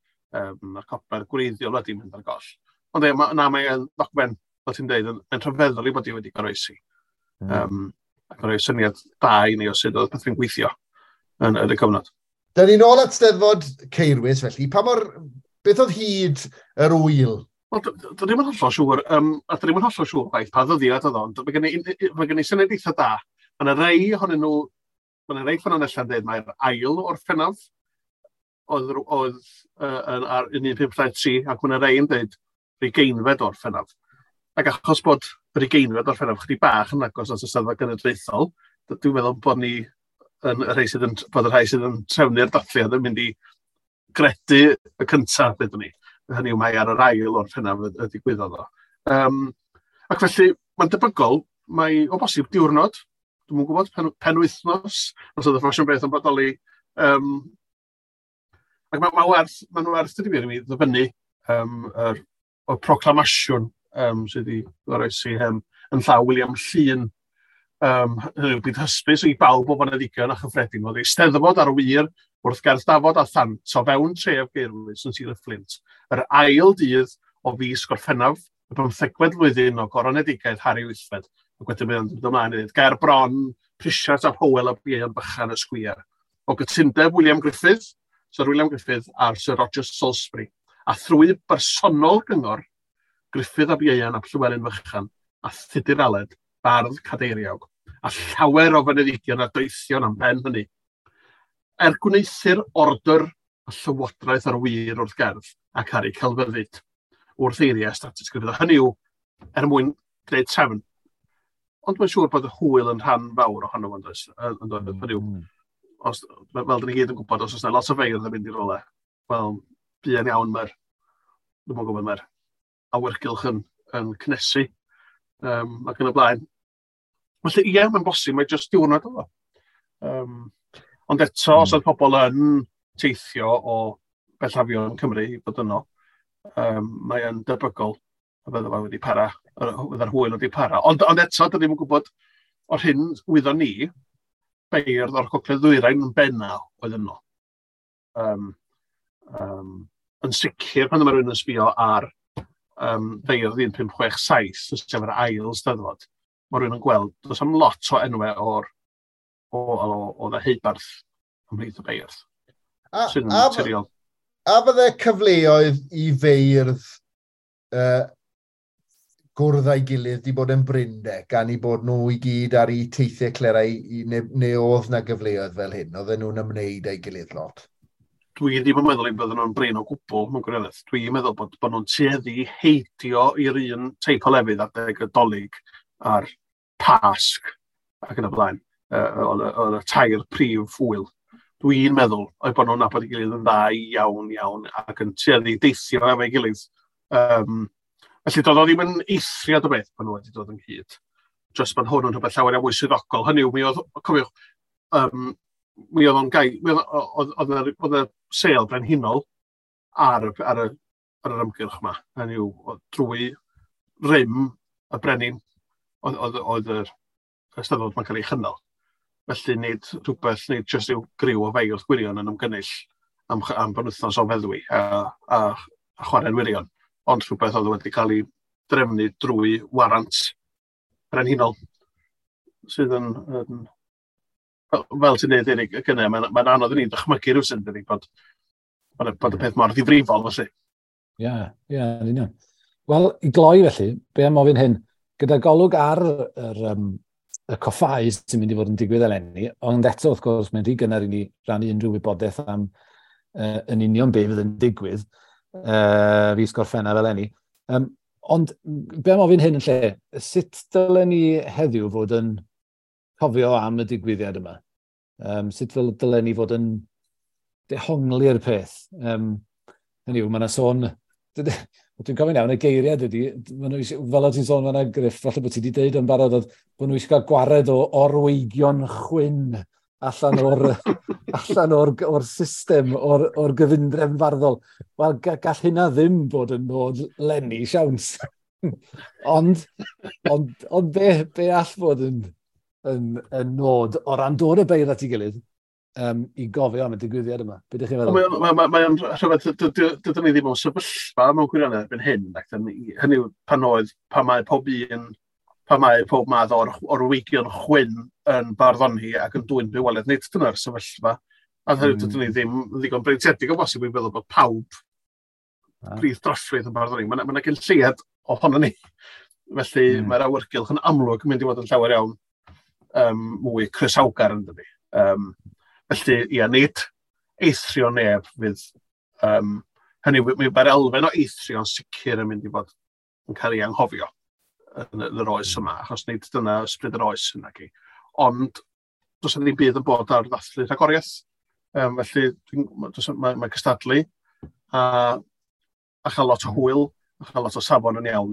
Mae'r copi'r gwreiddiol wedi mynd ar goll. Ond na, mae'n ddogfen, fel ti'n dweud, yn rhyfeddol i bod i wedi goroesi. Ac yn rhoi syniad da i ni o sut oedd pethau'n gweithio yn y cyfnod. Da ni'n ôl at Steddfod Caerwys, felly. Pa mor, beth oedd hyd yr ŵyl? Wel, dwi ddim yn hollol siŵr, a dwi ddim yn hollol siŵr gwaith pa ddyddiad oedd o, ond mae gen i syniad eitha da. Mae yna rei ohonyn nhw, mae yna rei ffynonellau yn dweud mae'r ail Orffennaf oedd ar 1523, ac mae yna rei yn dweud 20fed Orffennaf. Ac achos bod yr 20fed Orffennaf chydig bach yn agos at y Steddfod Genedlaethol, dwi'n meddwl bod ni yn y rhai sydd yn, bod y rhai sydd yn trefnu'r dathliad yn mynd i gredu y cyntaf, dydyn ni. Hynny yw mae ar yr ail Orffennaf y digwyddodd o. Ac felly, mae'n debygol, mae o bosib diwrnod, dwi'm yn gwybod, penwythnos, os oedd y ffasiwn beth yn bodoli. Ac mae'n werth dydy wir i mi ddyfynnu o'r proclamasiwn sydd wedi goroesi yn llaw William Llŷn. Hynny yw, bydd hysbys i bawb o foneddigion a chyffredin oedd eisteddfod ar wir wrth gerdd dafod a thant o fewn tref Gaerwys yn Sir y Fflint, yr ail dydd o fis Gorffennaf, y 15fed flwyddyn o goronedigaeth Harri VIII, ac wedyn mae'n dod ymlaen i ddweud, ger bron, Prisiart ap Hywel a Ieuan Bychan y Sgwiar. O gytundeb William Griffith, Sir William Griffith a'r Sir Roger Salisbury, a thrwy bersonol gyngor Griffith ab Ieuan ap Llywelyn Fychan a Thudur Aled, bardd cadeiriawg, a llawer o fyneddigion a doethion am ben hynny. Er gwneuthur order y llywodraeth ar wir wrth gerdd ac ar ei celfyddyd wrth eiriau status Griffith. Hynny yw, er mwyn gwneud trefn. Ond mae'n siŵr bod y hwyl yn rhan fawr ohono fo, does? Hynny yw, os, fel dyn ni gyd yn gwybod, os oes yna lot o feirdd yn mynd i rywle, wel, Buan iawn mae'r, dwi'n gwybod, mae'r awyrgylch yn cynnesu ac yn y blaen. Felly ie, mae'n bosib, mae jyst diwrnod oedd o. Ond eto, os oedd pobl yn teithio o bellafion Cymru i fod yno, mae'n debygol y bydde fo wedi para, bydde'r hwyl wedi para. Ond eto, dyn ni'n gwybod o'r hyn wyddon ni, beirdd o'r Gogledd Ddwyrain yn benna oedd yno. Yn sicr, pan mae rhywun yn sbio ar feirdd 1567, sef yr ail steddfod, mae rhywun yn gweld, does am lot o enwau o'r o, o, o ddeheubarth ymhlith y beirdd. Sy'n naturiol. A fydde cyfleoedd i feirdd gwrdd â'i gilydd di bod yn brinde, gan i bod nhw i gyd ar eu teithiau clerau, neu oedd na gyfleoedd fel hyn, oedden nhw'n ymwneud â'i gilydd lot? Dwi ddim yn meddwl eu bydden nhw'n brin o gwbl, mewn gwirionedd. Dwi'n meddwl bod nhw'n tueddu heidio i'r un teip o lefydd adeg y Dolig a'r Pasg ac yn y blaen, oedd y tair prif ŵyl. Dwi'n meddwl oedd bod nhw'n nabod ei gilydd yn dda iawn iawn ac yn tueddu deithio efo'i gilydd. Felly doedd o ddim yn eithriad o beth pan nhw wedi dod ynghyd. Just bod hwn yn rhywbeth llawer iawn mwy swyddogol. Hynny yw, mi oedd, cofiwch, mi oedd o'n gai, mi oedd y sêl brenhinol ar yr ymgyrch yma. Hynny yw, drwy rym y brenin oedd yr Eisteddfod mae'n cael ei chynnal. Felly nid rhywbeth, nid jyst yw griw o feirdd gwirion yn ymgynnull am benwythnos o feddwi a chwarae'n wirion, ond rhywbeth oedd wedi cael ei drefnu drwy warant brenhinol sydd yn fel ti'n dweud, Eric, y gynnau, mae'n anodd i ni ddychmygu rhywsut, dydy, bod y peth mor ddifrifol, felly. Ie, yn union. Wel, i gloi felly, be am ofyn hyn? Gyda golwg ar y coffáu sy'n mynd i fod yn digwydd eleni, ond eto, wrth gwrs, mae'n rhy gynnar i ni rannu unrhyw wybodaeth am yn union be fydd yn digwydd fis Gorffennaf eleni. Ond be am ofyn hyn yn lle, sut dylen ni heddiw fod yn cofio am y digwyddiad yma? Sut dylen ni fod yn dehongli'r peth? Hynny yw, mae yna sôn, dwi'n cofio'n iawn, y geiriad ydy, ma' nhw fel o ti'n sôn fan'na, Griff, falle bod ti wedi deud yn barod, oedd bod nhw eisiau cael gwared o orweigion chwyn allan o'r system, o'r gyfundrefn farddol. Wel, gall hynna ddim bod yn nod 'leni, siawns. Ond be all fod yn nod o ran dod y beirdd at ei gilydd i gofio am y digwyddiad yma? Be ydych chi'n feddwl? Mae o'n rhywbeth, dydyn ni ddim mewn sefyllfa mewn gwirionedd erbyn hyn, ac hynny yw pan mae pob un, pan mae pob math o'r weigion chwyn yn barddoni ac yn dwyn bywoliaeth, nid dyna'r sefyllfa. A hynny dydyn ni ddim yn ddigon breintiedig o bosib i feddwl bod pawb brith droffrith yn barddoni. Mae yna gyn lleiad ohono ni. Felly mae'r awyrgylch yn amlwg yn mynd i fod yn llawer iawn mwy croesawgar, yn dydi. Felly, ia, nid eithrio neb fydd. Hynny, mae'r elfen o eithrio yn sicr yn mynd i fod yn cael ei anghofio yn yr oes yma, achos nid dyna ysbryd yr oes yna. Ond does yna ddim byd yn bod ar ddathlu rhagoriaeth. Felly mae cystadlu a chael lot o hwyl, a chael lot o safon yn iawn.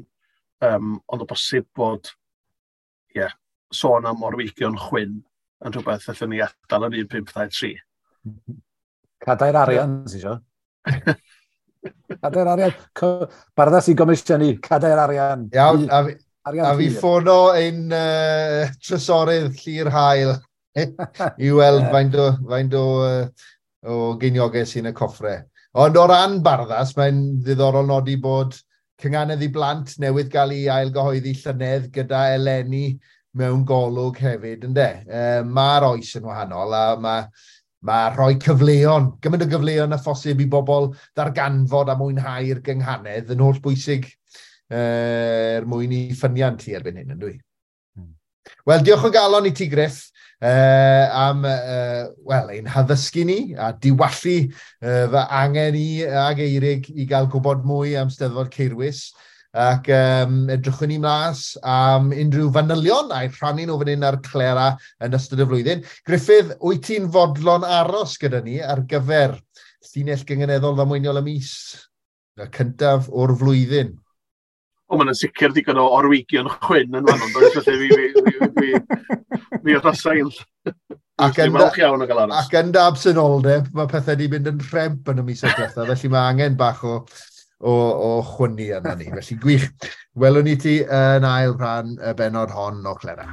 Ond o bosib bod, ie, yeah, sôn am orweigion chwyn yn rhywbeth allan ni adael yn 1523. Cadair arian, sy'n isio. Cadair arian. Barddas i gomisiynu, cadair arian. Iawn, a fi ffono ein trysorydd Llyr Hael i weld faint o geiniogau sy'n y coffre. Ond o ran Barddas, mae'n ddiddorol nodi bod Cynghanedd i Blant newydd gael ei ailgyhoeddi llynedd gyda eleni mewn golwg hefyd, yndê? Mae'r oes yn wahanol a mae rhoi cyfleon, gymaint o gyfleon a phosib i bobl ddarganfod a mwynhau'r gynghanedd yn holl bwysig er mwyn i ffyniant hi erbyn hyn, yn dwi? Wel, diolch o galon i ti, Griff, am wel, ein haddysgu ni a diwallu fy angen i ag Eirig i gael gwybod mwy am Steddfod Caerwys. Ac edrychwn ni mas am unrhyw fanylion a'i rhannu nhw fan hyn ar Clera yn ystod y flwyddyn. Griffith, wyt ti'n fodlon aros gyda ni ar gyfer Llinell gynganeddol ddamweiniol y mis, y cyntaf o'r flwyddyn. O, mae'n sicr digon o orwygion chwyn yn fan, does? Felly fi arhosai'n Ac yn, iawn o gael aros. Ac yn dy absenoldeb, mae pethau wedi mynd yn rhemp yn y misoedd diwethaf, felly mae angen bach o chwynnu arno ni. Felly gwych. Welwn ni ti yn ail rhan y bennod hon o Clera.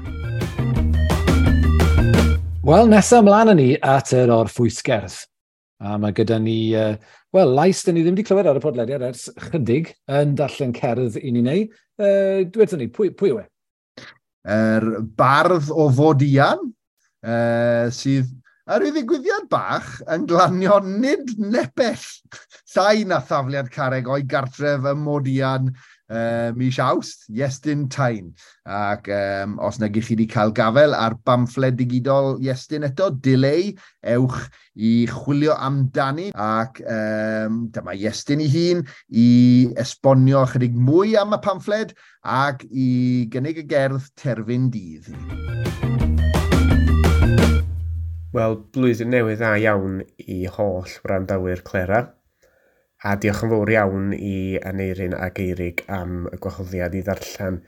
Wel, nesaf ymlaen â ni at yr orffwysgerdd. A mae gyda ni, wel, lais dyn ni ddim wedi clywed ar y podlediad ers chydig yn darllen cerdd i ni neu. Dwedwn ni, pwy yw e? Yr bardd o Fodian, sydd ar ryw ddigwyddiad bach yn glanio nid nepell llai na thafliad carreg o'i gartref ym Modian mis Awst, Iestyn Tyne. Ac os nag ych chi wedi cael gafel ar bamffled digidol Iestyn eto, Dileu, ewch i chwilio amdani. Ac dyma Iestyn ei hun i esbonio chydig mwy am y pamffled ac i gynnig y gerdd Terfyn Dydd. Wel, blwyddyn newydd dda iawn i holl wrandawyr Clera. A diolch yn fawr iawn i Aneirin ac Eirig am y gwahoddiad i ddarllen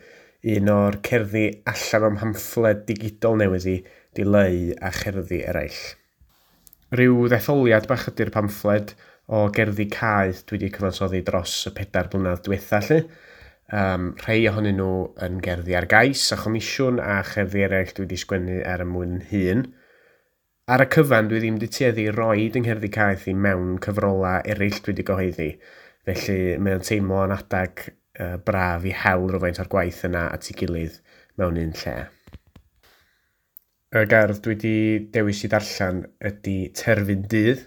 un o'r cerddi allan o'm pamffled digidol newydd i, Dileu a cherddi eraill. Rhyw ddetholiad bach ydy'r pamffled o gerddi caeth dwi wedi cyfansoddi dros y 4 blynedd diwetha lly. Rhai ohonyn nhw yn gerddi ar gais a chomisiwn a cherddi eraill dwi wedi sgwennu er mwyn hun. Ar y cyfan, dwi ddim wedi tueddu i roid yng ngherddi caeth i mewn cyfrolau eraill dwi wedi gyhoeddi, felly mae o'n teimlo yn adag braf i hel rhywfaint o'r gwaith yna at ei gilydd mewn un lle. Y gerdd dwi wedi dewis i ddarllen ydy Terfyn Dydd.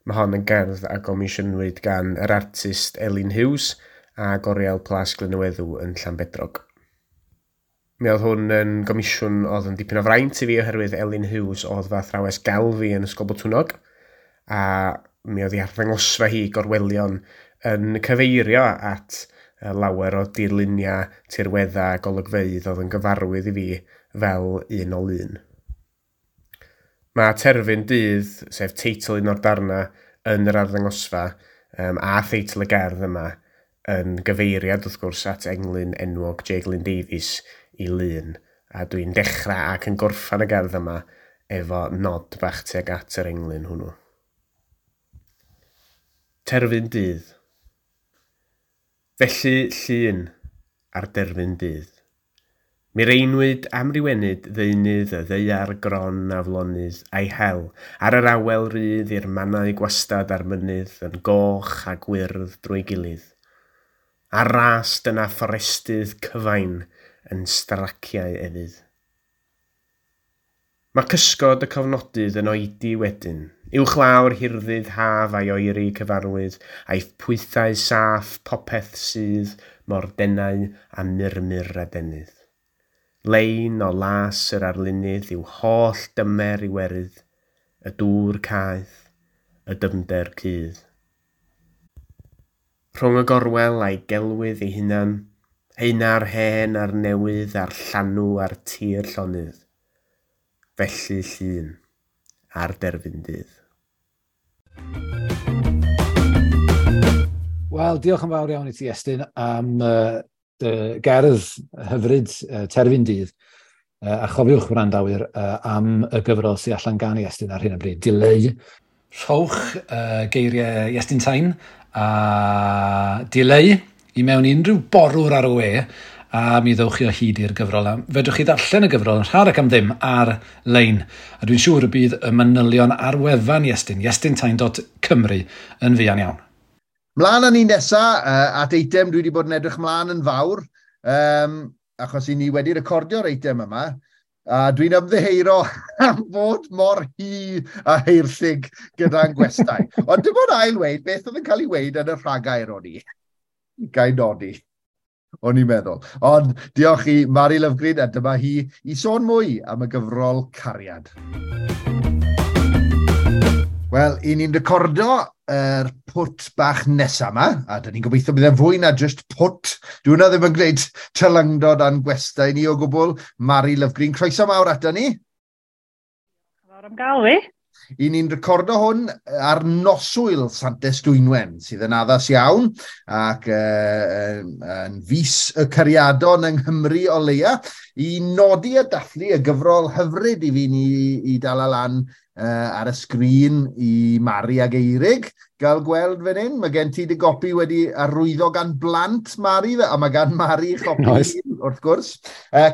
Mae hon yn gerdd a gomisiynwyd gan yr artist Elin Hughes a Oriel Plas Glyn-y-Weddw yn Llanbedrog. Mi oedd hwn yn gomisiwn oedd yn dipyn o fraint i fi oherwydd Elin Hughes oedd fy athrawes gelf fi yn Ysgol Botwnnog, a mi oedd ei arddangosfa hi gorwelion yn cyfeirio at lawer o dirluniau, tirweddau a golygfeydd oedd yn gyfarwydd i fi fel un o lun. Mae Terfyn Dydd, sef teitl un o'r darnau yn yr arddangosfa, a theitl y gerdd yma, yn gyfeiriad wrth gwrs at englyn enwog J. Glyn Davies i lun, a dwi'n dechrau ac yn gorffan y gerdd yma efo nod bach tuag at yr englyn hwnnw. Terfyn Dydd. Felly llun ar derfyn dydd. Mireinwyd amrywenyd ddeunydd y ddaear gron aflonydd a'i hel ar yr awel rydd i'r mannau gwastad a'r mynydd yn goch a gwyrdd drwy gilydd. Ar ras dyna fforestydd cyfain yn straciau efydd. Mae cysgod y cofnodydd yn oedi wedyn, uwchlawr hirddydd haf a'i oeri cyfarwydd, a'i pwythau saff popeth sydd mor denau a murmur adenydd. Lein o las yr arlunydd yw holl dymer iwerydd, y dŵr caeth, y dyfnder cudd. Rhwng y gorwel a'i gelwydd ei hunan, heina'r hen a'r newydd a'r llanw a'r tir llonydd. Felly llun ar derfyn dydd. Wel, diolch yn fawr iawn i ti, Iestyn, am dy gerdd hyfryd Terfyn Dydd. A chofiwch wrandawyr am y gyfrol sydd allan gan Iestyn ar hyn o bryd. Dileu. Rhowch geiriau Iestyn Tyne a Dileu i mewn i unrhyw borwr ar y we, a mi ddewch chi o hyd i'r gyfrol. A fedrwch chi ddarllen y gyfrol yn rhad ac am ddim ar-lein. A dwi'n siŵr y bydd y manylion ar wefan Iestyn, iestyntyne.cymru, yn fuan iawn. Mlaen â ni nesa at eitem dwi wedi bod yn edrych mlaen yn fawr, achos i ni wedi recordio'r eitem yma, a dwi'n ymddiheuro am fod mor hi a heirllig gyda'n gwestai. Ond dim ond ail weud beth oedd yn cael ei weud yn y rhagair o'n i. Gai nodi, o'n i'n meddwl. Ond diolch i Mari Lovgreen, a dyma hi i sôn mwy am y gyfrol Cariad. Wel, i ni'n recordo yr pwt bach nesa yma, a dyn ni'n gobeithio bydd e'n fwy na just pwt. Dwi hwnna ddim yn gwneud tylyngdod a'n gwestai ni o gwbl. Mari Lovgreen, croeso mawr ato ni. Fawr am gael fi. I ni'n recordo hwn ar noswyl Santes Dwynwen, sydd yn addas iawn, ac yn fus y cariadon yng Nghymru o leia, i nodi a dathlu y gyfrol hyfryd i fi ni i dal lan ar y sgrin i Mari ag Eirig gael gweld fan hyn. Mae gen ti dy gopi wedi arwyddo gan blant Mari, a mae gan Mari chopi nice. Wrth gwrs.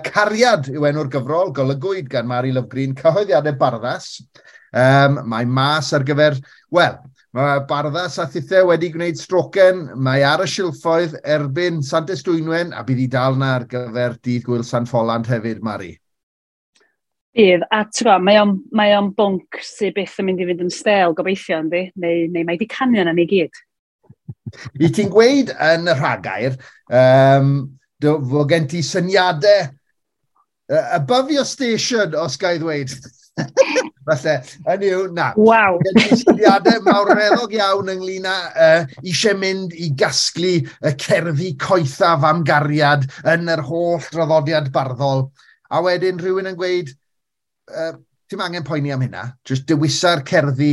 Cariad yw enw'r gyfrol, golygwyd gan Mari Lovgreen, cyhoeddiadau Barddas. Mae mas ar gyfer, wel, mae Barddas a Thithe wedi gwneud strocen, mae ar y silffoedd erbyn Santes Dwynwen, a bydd i dal na ar gyfer dydd Gwyl San Ffolant hefyd, Mari. Bydd, a ti'n gwybod, mae o'n bwnc sydd byth yn mynd i fynd yn stêl gobeithio, yndi? Neu mae di canu yna ni gyd. I ti'n gweud yn y rhagair, fod gen ti syniadau above your station, os ga i ddweud. Falle, hynny yw, na. Waw. Gen ti syniadau mawreddog iawn ynglyn â eisiau mynd i gasglu y cerddi coethaf am gariad yn yr holl draddodiad barddol. A wedyn rhywun yn gweud, ti'n angen poeni am hynna, jyst dewisa'r cerddi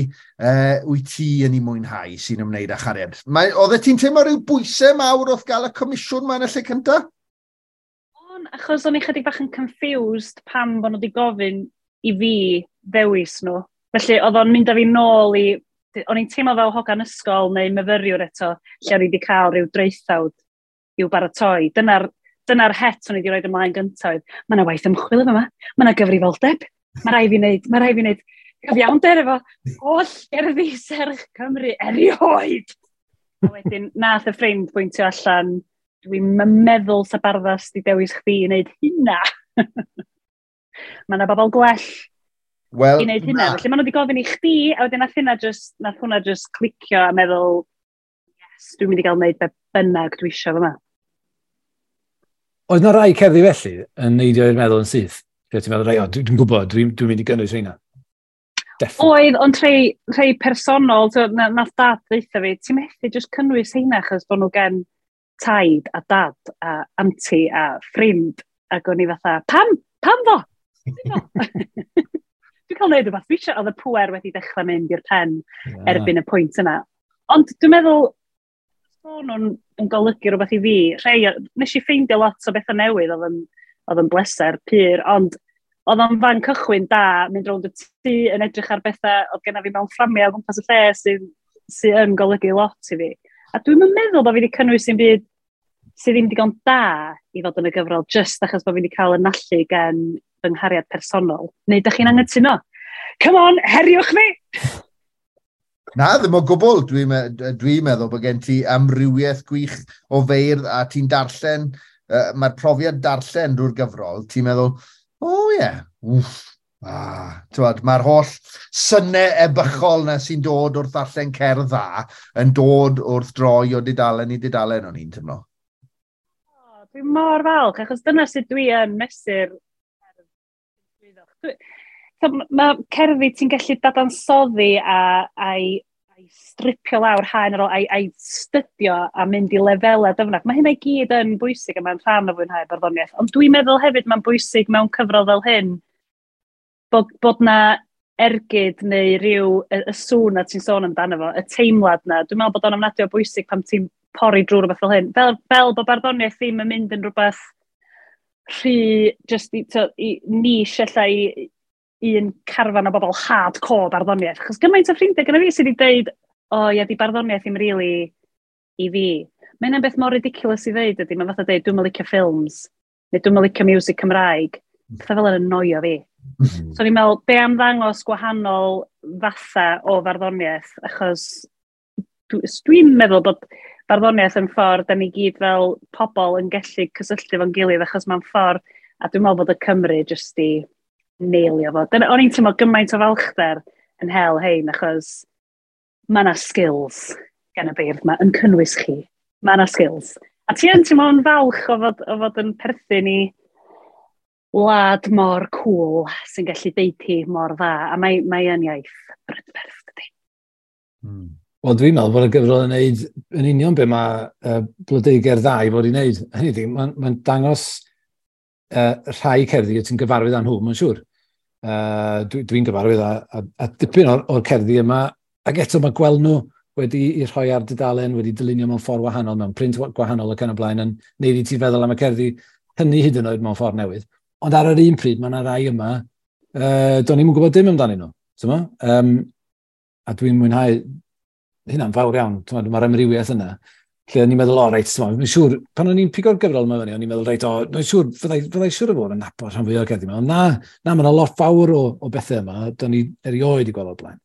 wyt ti yn ei mwynhau sy'n ymwneud â chariad. Oeddet ti'n teimlo rhyw bwysau mawr wrth gael y comisiwn ma yn y lle cyntaf? On, achos o'n i chydig bach yn confused pam bod nhw wedi gofyn i fi ddewis nhw. Felly oedd o'n mynd â fi nôl i... O'n i'n teimlo fel hogan ysgol neu myfyriwr eto, lle o'n i wedi cael rhyw draethawd i'w baratoi. Dyna'r het o'n i wedi rhoi ymlaen gyntaf. Mae yna waith ymchwil efo yma, mae yna gyfrifoldeb. Mae rhaid fi wneud, mae rhaid fi wneud cyfiawnder efo holl gerddi serch Cymru erioed. A wedyn, nath y ffrind bwyntio allan, dwi'n meddwl sa Barddas di dewis chdi i wneud hynna. Mae yna bobl gwell well, i wneud hynna. Felly maen nhw wedi gofyn i chdi, a wedyn nath hwnna just clicio a meddwl, yes, dwi'n mynd i gael wneud be bynnag dwi eisiau fyma. Oedd yna rai cerddi felly yn neidio i'r meddwl yn syth? Lle ti'n meddwl, rei, dwi'n gwybod, dwi'n dwi mynd i gynnwys rheina. Definitely. Oedd, ond rhai personol, so, nath dad ddeutha fi, ti'n methu just cynnwys heina achos bod nhw gen taid a dad a anti a ffrind, ac o'n i fatha, pam? Pam fo? Dwi'n cael neud rhywbeth dwi eisiau, oedd y pwer wedi dechrau mynd i'r pen erbyn y pwynt yna. Ond dwi'n meddwl, bod nhw'n yn golygu rhywbeth i fi. Rhai, nes i ffeindio lot o bethau newydd oedd yn bleser pur, ond oedd o'n fan cychwyn da, mynd rownd y tŷ yn edrych ar bethau oedd genna fi mewn fframiau o gwmpas y lle sydd sy yn golygu lot i fi. A dwi'n meddwl bod fi wedi cynnwys i'n byd sydd ddim digon da i fod yn y gyfrol, just achos bod fi wedi cael y nallu gan fy nghariad personol. Neu ydych chi'n anghytuno? Come on, heriwch fi! Na, ddim o gwbl. Dwi'n dwi meddwl bod gen ti amrywiaeth gwych o feirdd a ti'n darllen, mae'r profiad darllen drwy'r gyfrol, ti'n meddwl, o oh, ie, yeah, wff, mae'r holl synnau ebychol na sy'n dod wrth ddarllen cerdd dda yn dod wrth droi o dudalen i dudalen, o'n i'n teimlo. Dwi'n mor falch, achos dyna sut dwi yn mesur. Mae cerddi ti'n gallu dadansoddi a'i stripio lawr haen ar ôl, a'i stydio a mynd i lefelau dyfnach. Mae hynna i gyd yn bwysig a mae'n rhan o fwynhau barddoniaeth. Ond dwi'n meddwl hefyd mae'n bwysig mewn cyfrol fel hyn bod na ergyd neu rhyw y sŵn na ti'n sôn amdano fo, y teimlad na. Dwi'n meddwl bod o'n ofnadwy o bwysig pan ti'n pori drwy rhywbeth fel hyn. Fel bod barddoniaeth ddim yn mynd yn rhywbeth rhy, just i niche ella i un carfan o bobl hardcore barddoniaeth. Achos gymaint o ffrindiau gyda fi sydd wedi dweud, o ia, di barddoniaeth ddim really i fi. Mae hynna'n beth mor ridiculous i ddeud ydy, mae'n fatha dweud, dwi'm yn licio ffilms, neu dwi'm yn licio music Cymraeg. Pethau fel yn annoio fi. So ni'n meddwl, be am ddangos gwahanol fatha o farddoniaeth, achos dwi'n meddwl bod barddoniaeth yn ffordd, da ni gyd fel pobl yn gallu cysylltu fo'n gilydd, achos mae'n ffordd, a dwi'n meddwl bod y Cymru jyst i neilio fo. Dyna, o'n i'n teimlo gymaint o falchder yn hel hein, achos mae yna skills gan y beirdd yma, yn cynnwys chi. Mae yna skills. A ti yn teimlo'n falch o fod yn perthyn i wlad mor cool sy'n gallu deud hi mor dda, a mae yn iaith brydferth, dydy. Wel, dwi'n meddwl bod y gyfrol yn neud yn union be mae Blodeugerdd Dda i fod i wneud. Hynny ydi, mae'n dangos rhai cerddi ti'n gyfarwydd â nhw, mae'n siŵr. Dwi'n gyfarwydd a dipyn o'r cerddi yma, ac eto mae gweld nhw wedi i rhoi ar dudalen, wedi dylunio mewn ffordd wahanol, mewn print gwahanol ac yn y blaen, yn neud i ti feddwl am y cerddi hynny hyd yn oed mewn ffordd newydd. Ond ar yr un pryd, mae yna rai yma, do'n i'm yn gwybod dim amdanyn nhw. A dwi'n mwynhau hynna'n fawr iawn, mae'r amrywiaeth yna. Lle o'n i'n meddwl, o, reit, dwi'n siŵr, pan o'n i'n pigo'r gyfrol yma fyny, o'n i'n meddwl, reit, o, dwi'n siŵr, fyddai siŵr o fod yn nabod rhan fwy o'r cerddi yma. Ond na, mae yna lot fawr o bethau yma, do'n i erioed i gweld o'r blaen.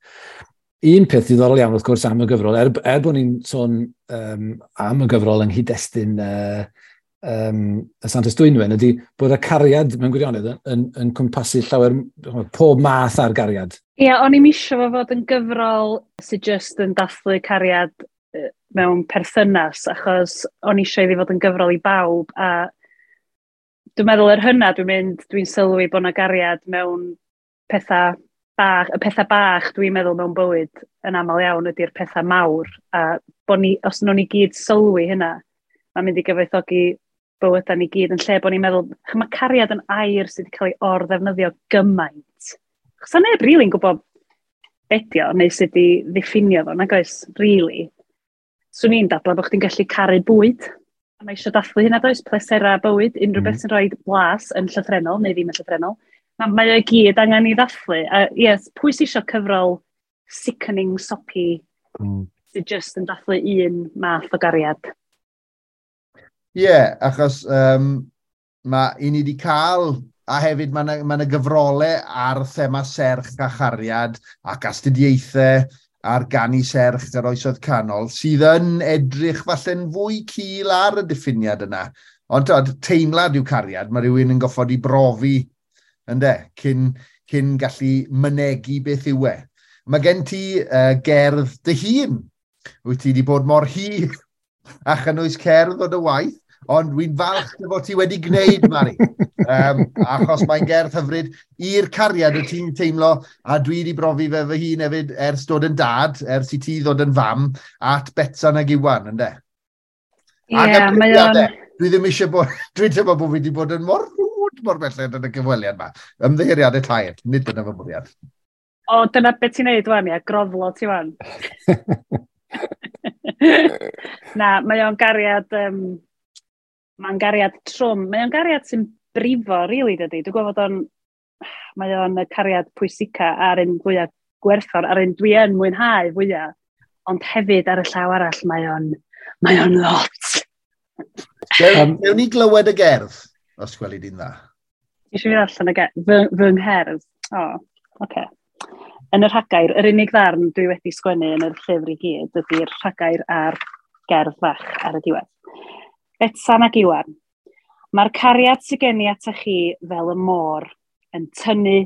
Un peth diddorol iawn, wrth gwrs, am y gyfrol, er bod ni'n sôn am y gyfrol yng nghyd-destun y Santes Dwynwen, ydy bod y cariad mewn gwirionedd yn cwmpasu llawer, pob math ar gariad. Ie, yeah, o'n i'n isio fo fod yn gyfrol sydd just yn dathlu cariad mewn perthynas, achos o'n eisiau iddi fod yn gyfrol i bawb, a dwi'n meddwl er hynna dwi'n sylwi bod yna gariad mewn pethau bach, y pethau bach dwi'n meddwl mewn bywyd yn aml iawn ydy'r pethau mawr, a bod ni, os nhw'n ni gyd sylwi hynna, mae'n mynd i gyfoethogi bywydau ni gyd yn lle bod ni'n meddwl, mae cariad yn air sydd wedi cael ei or-ddefnyddio gymaint. Chos neb rili'n gwybod be 'di o, neu sut i ddiffinio fo, nag oes, really. Swn i'n dadlau bod chdi'n gallu caru bwyd. A mae eisiau dathlu hynna does, plesera bywyd, unrhyw beth sy'n rhoi blas yn llythrennol, neu ddim yn llythrennol. Mae o gyd angen i ddathlu. A yes, pwy sy'n eisiau cyfrol sickening, soppy, sydd just yn dathlu un math o gariad? Ie, yeah, achos mae i ni wedi cael, a hefyd mae yna gyfrolau ar thema serch a chariad ac astudiaethau ar ganu serch yr oesoedd canol, sydd yn edrych falle'n fwy cul ar y diffiniad yna. Ond teimlad yw cariad, mae rhywun yn goffod i brofi, ynde, cyn gallu mynegi beth yw e. Mae gen ti gerdd dy hun. Wyt ti wedi bod mor hir a chynnwys cerdd o dy waith, ond wy'n falch dy fod ti wedi gwneud, Mari. Achos mae'n gerdd hyfryd i'r cariad y ti'n teimlo, a dwi wedi brofi fe fy hun hefyd ers dod yn dad, ers i ti ddod yn fam, at Betsan ag Iwan, ynde? Ie, yeah, mae o'n... Dwi ddim eisiau bod... Dwi'n teimlo bod fi wedi bod yn mor rwd mor belled yn y gyfweliad yma. Ymddiheuriadau tair, nid dyna fy mwriad. O, dyna beth ti'n neud wan, ia, groflo ti wan. Na, mae o'n gariad... mae'n gariad trwm. Mae o'n gariad sy'n brifo, really, dydy. Dwi'n gwybod o'n... Mae o'n y cariad pwysica a'r un fwyaf gwerthfawr, a'r un dwi yn mwynhau fwyaf. Ond hefyd ar y llaw arall, mae o'n lot. Gewn ni glywed y gerdd, os gweli di'n dda. Eisiau fi ddarllen y gerdd, fy ngherdd. O, oce. Yn y rhagair, yr unig ddarn dwi wedi sgwennu yn yr llyfr i gyd ydy'r rhagair a'r gerdd fach ar y diwedd. Betsan ac Iwan, mae'r cariad sydd gen i ata chi fel y môr, yn tynnu,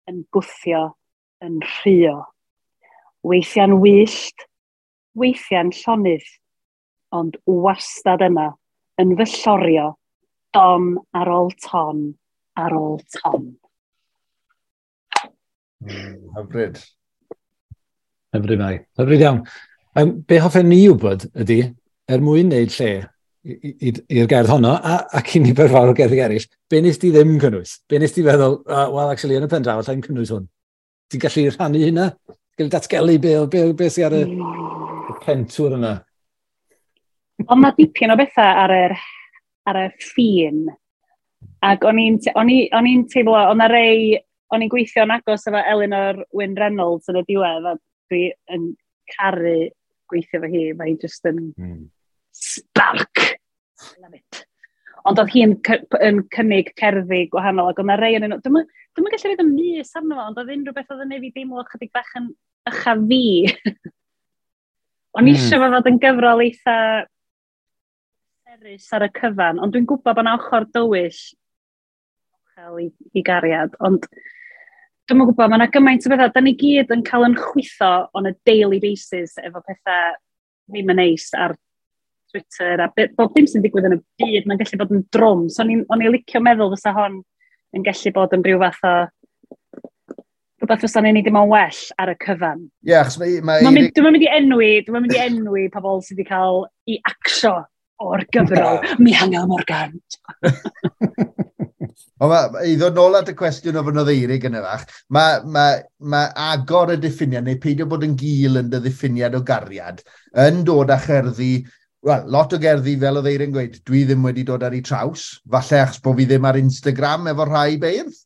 yn gwthio, yn rhuo. Weithiau'n wyllt, weithiau'n llonydd, ond wastad yna, yn fy llorio, don ar ôl ton, ar ôl ton. Hyfryd. Hyfryd, Mari. Hyfryd iawn. Be hoffen ni wybod ydy, er mwyn wneud lle i'r gerdd honno, ac i nifer fawr o gerddi eraill, be nes di ddim cynnwys? Be nes di feddwl, well, actually, yn y pen draw, allai'n cynnwys hwn? Ti'n gallu rhannu hynna? Ti'n gallu datgelu be sydd ar y pentwr yna? Ond mae dipyn o bethau ar y ffin. Ac o'n i'n teimlo, o'n rei, o'n i'n gweithio'n agos efo Elinor Wyn Reynolds yn y diwedd, a dwi yn caru gweithio efo hi, mae hi just yn spark. Love it. Ond oedd hi'n yn cynnig cerddi gwahanol, ac oedd 'na rei yn nhw. Dwi'm yn gallu rhaid y mys arno fo, ond oedd unrhyw beth oedd yn neud fi deimlo chydig bach yn ycha fi. O'n eisiau fo fod yn gyfrol eitha serus ar y cyfan, ond dwi'n gwybod bod 'na ochr dywyll i gariad, ond dwi'm yn gwybod, mae 'na gymaint o bethau. Da ni gyd yn cael yn chwytho on a daily basis efo pethau ddim yn neis ar Twitter a bob dim sy'n digwydd yn y byd, mae'n gallu bod yn drwm. So o'n i'n licio meddwl fysa hon yn gallu bod yn rhyw fath o rhywbeth fysa'n ei wneud dim ond well ar y cyfan. Ie, achos mae Dwi'm yn mynd i enwi pobl sydd wedi cael i acsio o'r gyfrol Mihangel Morgan. Ond ma, i ddod nôl at y cwestiwn o fynodd Eirig yn y fach, mae agor y diffiniad, neu peidio bod yn gul yn dy ddiffiniad o gariad, yn dod â cherddi, wel, lot o gerddi, fel oedd Eirig yn gweud, dwi ddim wedi dod ar ei traws, falle achos bod fi ddim ar Instagram efo rhai beirdd,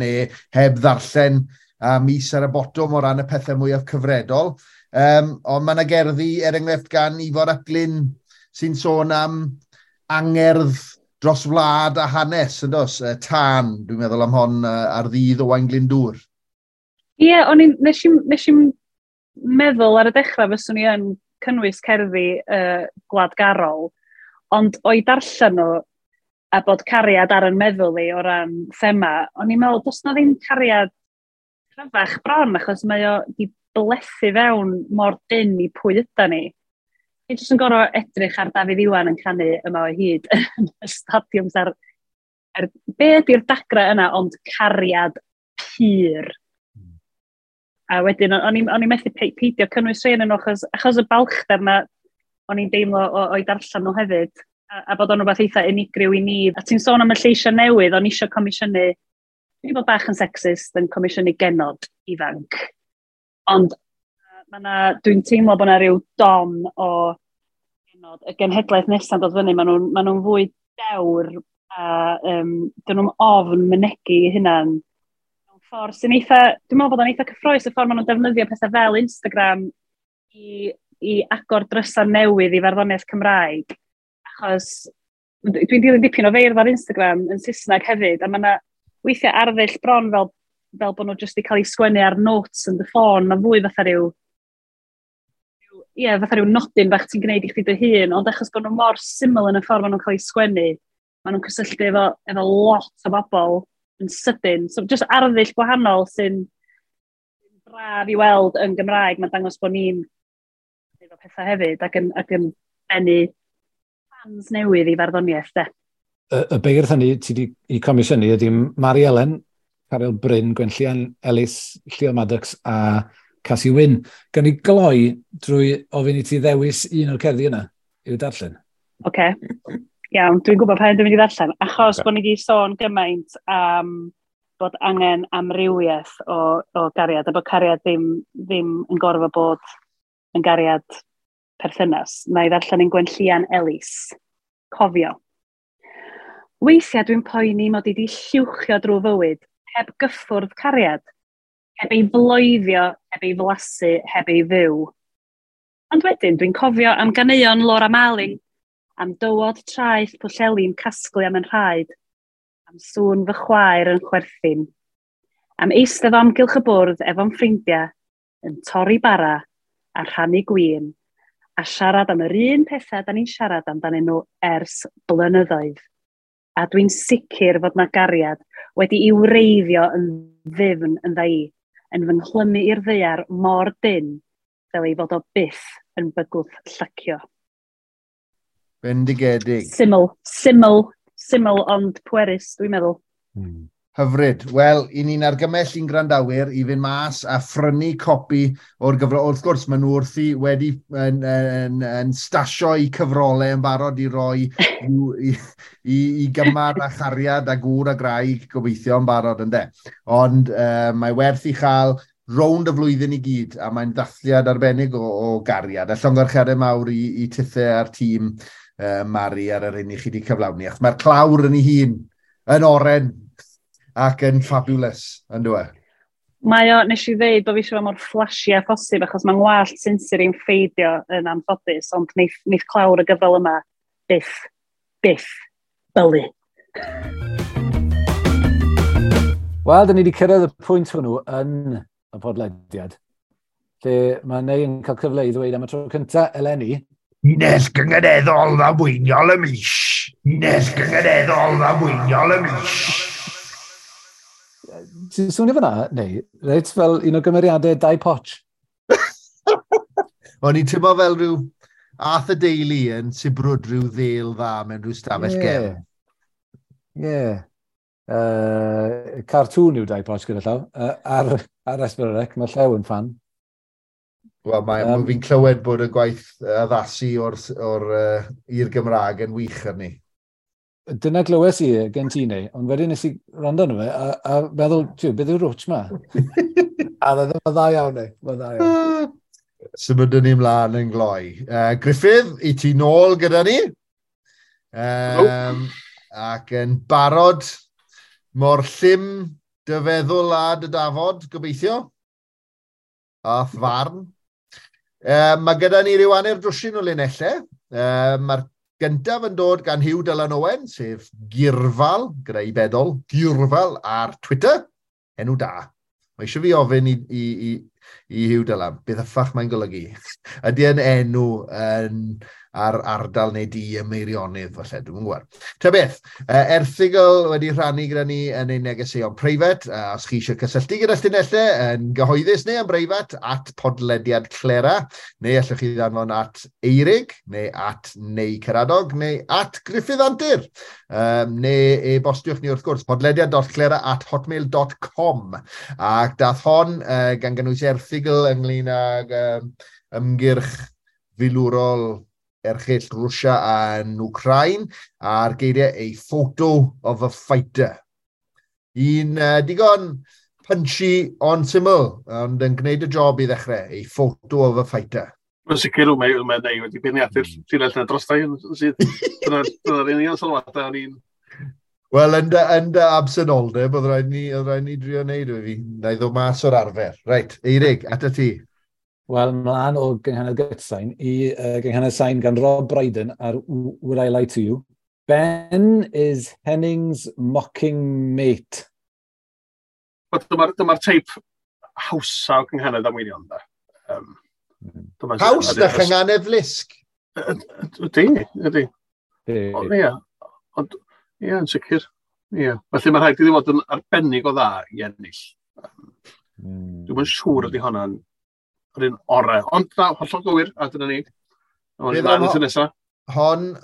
neu heb ddarllen a mis ar y botwm o ran y pethau mwyaf cyfredol. Ond mae yna gerddi, er enghraifft, gan Ifor ap Glyn, sy'n sôn am angerdd dros wlad a hanes, yn dos? Tân, dwi'n meddwl am hon ar ddydd Owain Glyndŵr. Ie, yeah, o'n i'n, nes i'm meddwl ar y dechrau fyswn i yn cynnwys cerddi gwladgarol, ond o'i darllen nhw a bod cariad ar yn meddwl i o ran thema, o'n i'n meddwl, does na ddim cariad cryfach bron, achos mae o di blethu fewn mor dynn i pwy yda ni. Ni jyst yn gorfod edrych ar Dafydd Iwan yn canu Yma o Hyd yn y stadiwms ar be ydy'r dagra yna, ond cariad pur. A wedyn, o'n i'n methu peidio cynnwys rhai yn nhw, achos y balchder na o'n i'n deimlo o'i darllen nhw hefyd, a bod o'n rhywbeth eitha unigryw i ni. A ti'n sôn am y lleisiau newydd, o'n i eisiau comisiynu, dwi'n bod bach yn sexist yn comisiynu genod ifanc. Ond dwi'n teimlo bod yna rhyw don o genod, y genhedlaeth nesaf dod fyny, maen nhw'n fwy dewr a dyn nhw'n ofn mynegi eu hunan. Mewn ffordd sy'n eitha, dwi'n meddwl bod o'n eitha cyffrous y ffordd maen nhw'n defnyddio pethau fel Instagram i agor drysau newydd i farddoniaeth Cymraeg. Achos dwi'n dilyn dipyn o feirdd ar Instagram yn Saesneg hefyd, a mae yna weithiau arddull bron fel bod nhw jyst wedi cael eu sgwennu ar notes yn dy ffôn, mae'n fwy fatha rhyw fatha rhyw nodyn bach ti'n gwneud i chdi dy hun, ond achos bod nhw mor syml yn y ffordd maen nhw'n cael eu sgwennu, maen nhw'n cysylltu efo lot o bobl yn sydyn. So just arddull gwahanol sy'n braf i weld yn Gymraeg, mae'n dangos bod ni'n efo pethau hefyd ac yn bennu fans newydd i farddoniaeth, de. Y beirdd hynny ti wedi i comisiynu ydy Mari Elen, Caryl Bryn, Gwenllian Ellis, Llio Maddox a Casi Wyn. Gan i gloi drwy ofyn i ti ddewis un o'r cerddi yna i'w darllen. Oce, iawn, dwi'n gwybod pa un dwi'n mynd i ddarllen. Achos bod ni wedi sôn gymaint am bod angen amrywiaeth o gariad, a bod cariad ddim yn gorfod bod yn gariad perthynas. Na i ddarllen un Gwenllian Ellis. Cofio. Weithiau dwi'n poeni mod i wedi lluwchio drwy fywyd, heb gyffwrdd cariad, heb ei floeddio, heb ei flasu, heb ei fyw. Ond wedyn dwi'n cofio am ganeuon Laura Marling, am dywod traeth Pwllheli'n casglu am yn rhaid, am sŵn fy chwaer yn chwerthin, am eistedd o amgylch y bwrdd efo'n ffrindiau, yn torri bara a rhannu gwin, a siarad am yr un pethau da ni'n siarad amdanyn nhw ers blynyddoedd. A dwi'n sicr fod na gariad wedi i wreiddio yn ddyfn yn dda i, yn fy nghlymu i'r ddaear mor dynn fel ei fod o byth yn bygwth llacio. Bendigedig. Syml ond pwerus, dwi'n meddwl. Hyfryd. Wel, i ni'n argymell i'n gwrandawyr i fynd mas a phrynu copi o'r gyfrol. Wrth gwrs, maen nhw wrthi wedi yn stasio i cyfrolau yn barod i roi i gymar a chariad a gŵr a graig gobeithio yn barod, ynde. Ond mae werth i chael rownd y flwyddyn i gyd, a mae'n dathliad arbennig o gariad. A llongyfarchiadau mawr i tithe a'r tîm Mari ar yr un i chi wedi cyflawni. Achos mae'r clawr yn ei hun yn oren ac yn fabulous, yn dwi? Mae o, nes i ddeud bod fi eisiau fo mor flashy a phosib, achos mae'n ngwallt sinsir i'n ffeidio yn anffodus, ond neith clawr y gyfrol yma byth bylu. Wel, dyn ni wedi cyrraedd y pwynt hwnnw yn y podlediad, lle mae Nei yn cael cyfle i ddweud am y tro cyntaf eleni. Llinell gynganeddol ddamweiniol y mis. Llinell gynganeddol ddamweiniol y mis. Ti'n swnio fyna, neu, reit fel un o gymeriadau Dau Potch? O'n i'n teimlo fel rhyw Arthur Daley yn sibrwd rhyw ddêl dda mewn rhyw stafell gefn. Ie. Cartoon yw Dau Potch gyda llaw. Ar S4C, mae Llew yn fan. Wel, mae fi'n clywed bod y gwaith addasu i'r Gymraeg yn wych arni. Dyna glywes i gen ti neu, ond wedyn nes i rando arno fe a meddwl, tiw, beth yw'r rwtch ma? A mae'n dda iawn, ei. Mae'n dda iawn. Symudwn ni mlaen yn gloi. Griffith, i ti nôl gyda ni. Ac yn barod mor llym dy feddwl a dy dafod, gobeithio. A'th farn. Mae gyda ni ryw hanner dwsin o linellau. Mae'r gyntaf yn dod gan Huw Dylan Owen, sef Gyrfal, gyda i bedol, Gyrfal ar Twitter. Enw da. Mae eisiau fi ofyn i Huw Dylan, beth yffach mae'n golygu? Ydy e'n enw yn, ar ardal neu di y Meirionydd, falle, dwi'n gwybod. Ta beth, erthygl wedi rhannu gyda ni yn ein negeseuon preifat. Os chi eisiau cysylltu gyda llinellau yn gyhoeddus neu yn breifat, @podlediadclera, neu allwch chi ddanfon @Eirig, neu @neicaradog, neu @GriffithAntur. Neu e-bostiwch ni wrth gwrs, podlediad.clera@hotmail.com. Ac dath hon gan gynnwys erthygl ynglyn ag ymgyrch filwrol erchyll Rwsia yn Wcrain, a'r geiriau "a photo of a fighter". Un digon punchy ond syml, ond yn gwneud y job i ddechrau, "A photo of a fighter". Mae'n sicr mae Neu wedi beirniadu'r llinell yna dros yn sydd. Dyna'r union sylwadau o'n i'n. Wel, yn dy absenoldeb, oedd rhaid ni drio wneud o fi. Na i ddod mas o'r arfer. Reit, Eirig, ata ti. Wel, mlaen o gynghanedd gytsain i gynghanedd sain gan Rob Brydon ar Would I Lie to You. "Ben is Henning's mocking mate." Dyma'r teip hawsa o gynghanedd damweiniol, da. Haws na chynghanedd lusg. Ydy, ydy. Ie, ond, ie, yn sicr. Ie. Felly mae rhaid iddi fod yn arbennig o dda i ennill. Dwi'm yn siŵr ydy hwnna'n yr un orau. Ond na, hollol gywir, a dyna ni. Ond mlaen at y nesaf. Hon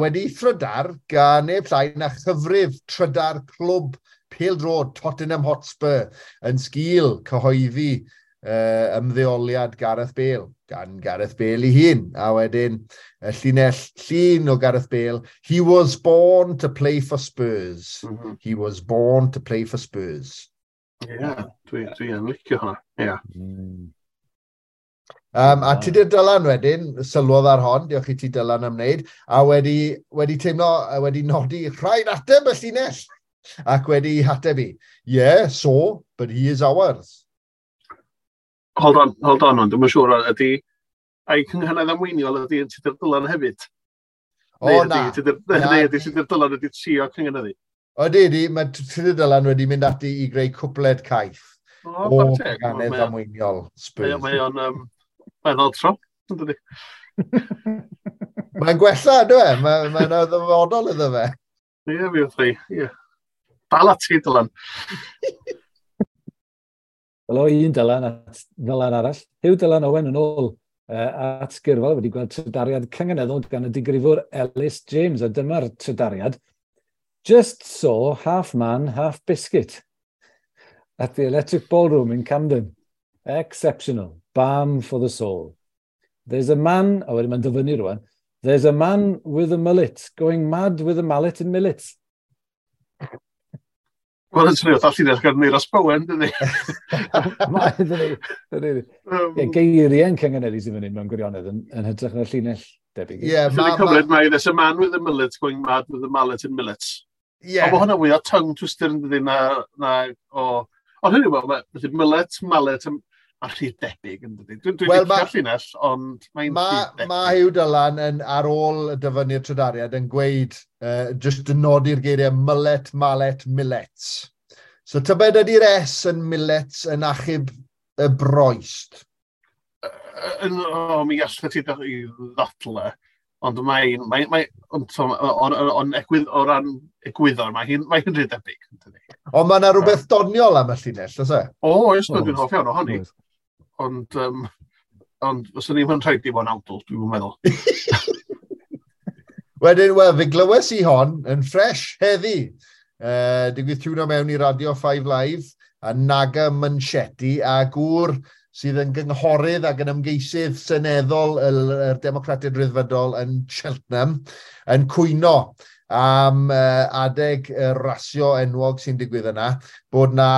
wedi thrydar gan neb llai na chyfrif trydar clwb pêl-droed Tottenham Hotspur yn sgil cyhoeddi ymddeoliad Gareth Bale, gan Gareth Bale ei hun. A wedyn, y llinell llun o Gareth Bale, "He was born to play for Spurs. He was born to play for Spurs." Ie, yeah, dwi yn licio hwnna. Ie. Yeah. A Tudur Dylan wedyn, sylwodd ar hon, diolch i ti Dylan am wneud, a wedi teimlo, wedi nodi rhaid ateb y llinell, ac wedi hateb i, "Yeah, so, but he is ours." Hold on, hold on, ond dwi'n siŵr ydy, ai cynghanedd damweiniol ydy yn Tudur Dylan hefyd? O, na. Neu ydy Tudur Dylan ydy trio cynghaneddu? Ydy, ydy, mae Tudur Dylan wedi mynd ati i greu cwpled caeth o cynghanedd damweiniol Spurs. Mae o'n mae'n tro, yn dydi? Mae'n gwella, ynddo e? Mae'n ddyfodol iddo fe. Ie, fi wrth i, ie. Dal ati, Dylan. Wel, o un Dylan at Ddylan arall. Huw Dylan Owen yn ôl at Gyrfal wedi gweld trydariad cynganeddol gan y digrifwr Ellis James, a dyma'r trydariad. "Just saw half man, half biscuit at the Electric Ballroom in Camden. Exceptional. Balm for the soul. There's a man," a wedyn mae'n dyfynnu rwan, "there's a man with a mullet going mad with a mallet in millet." Wel, yn swnio fatha llinell gan Euros Bowen, dydy? Mae, dydy. Dydy. Ie, geiriau'n cynganeddu sydd fan hyn mewn gwirionedd yn hytrach na'r llinell debyg. Ie, ma... Cymryd mae "there's a man with a mullet going mad with a mallet in millets." Ie. Ond mae hwnna fwy o tongue twister yn dydy na o. Ond hynny yw, mae mullet, mallet, a rhy debyg yn dydy. Dwi'n dwi well, licio'r llinell, ond mae'n ma, rhy debyg. Mae Huw Dylan yn, ar ôl y dyfynnu'r trydariad yn gweud, just yn nodi'r geiriau mullet, mallet, millets. So tybed ydy'r S yn millets yn achub y broest? O, mi allai ti i ddadle, ond mae'n, mae, ond, on, egwydd, o ran egwyddor, mae hi'n rhy debyg. Ond mae yna rhywbeth doniol am y llinell, oes e? O, oes, dwi'n hoff iawn ohoni. Ond fyswn ni'n rhaid i fod yn awdl, dwi'n meddwl. Wedyn, wel, fe glywes i hon yn ffres heddi. Digwydd tiwno mewn i Radio 5 Live, a Naga Manchetti, a gŵr sydd yn gynghorydd ac yn ymgeisydd seneddol y Democratiaid Rhyddfrydol yn Cheltenham, yn cwyno am adeg y rasio enwog sy'n digwydd yna, bod na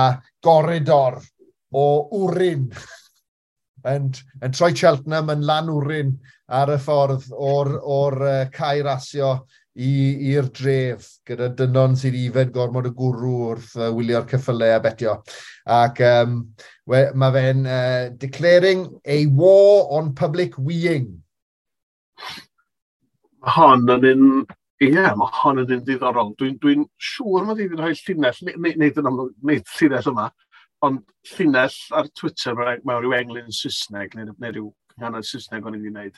goridor o wrin yn troi Cheltenham yn lan wrin ar y ffordd o'r cae rasio i'r dref, gyda dynon sydd ifed gormod o gwrw wrth wylio'r ceffylau a betio. Ac mae fe'n declaring a war on public weeing. Mae hon yn un, ie, mae hon yn un diddorol. Dwi'n siŵr mod i wedi rhoi llinell, nid yn amlwg, nid llinell yma, ond llinell ar Twitter mewn rhyw englyn Saesneg, neu rhyw cynghanedd Saesneg o'n i wedi gwneud,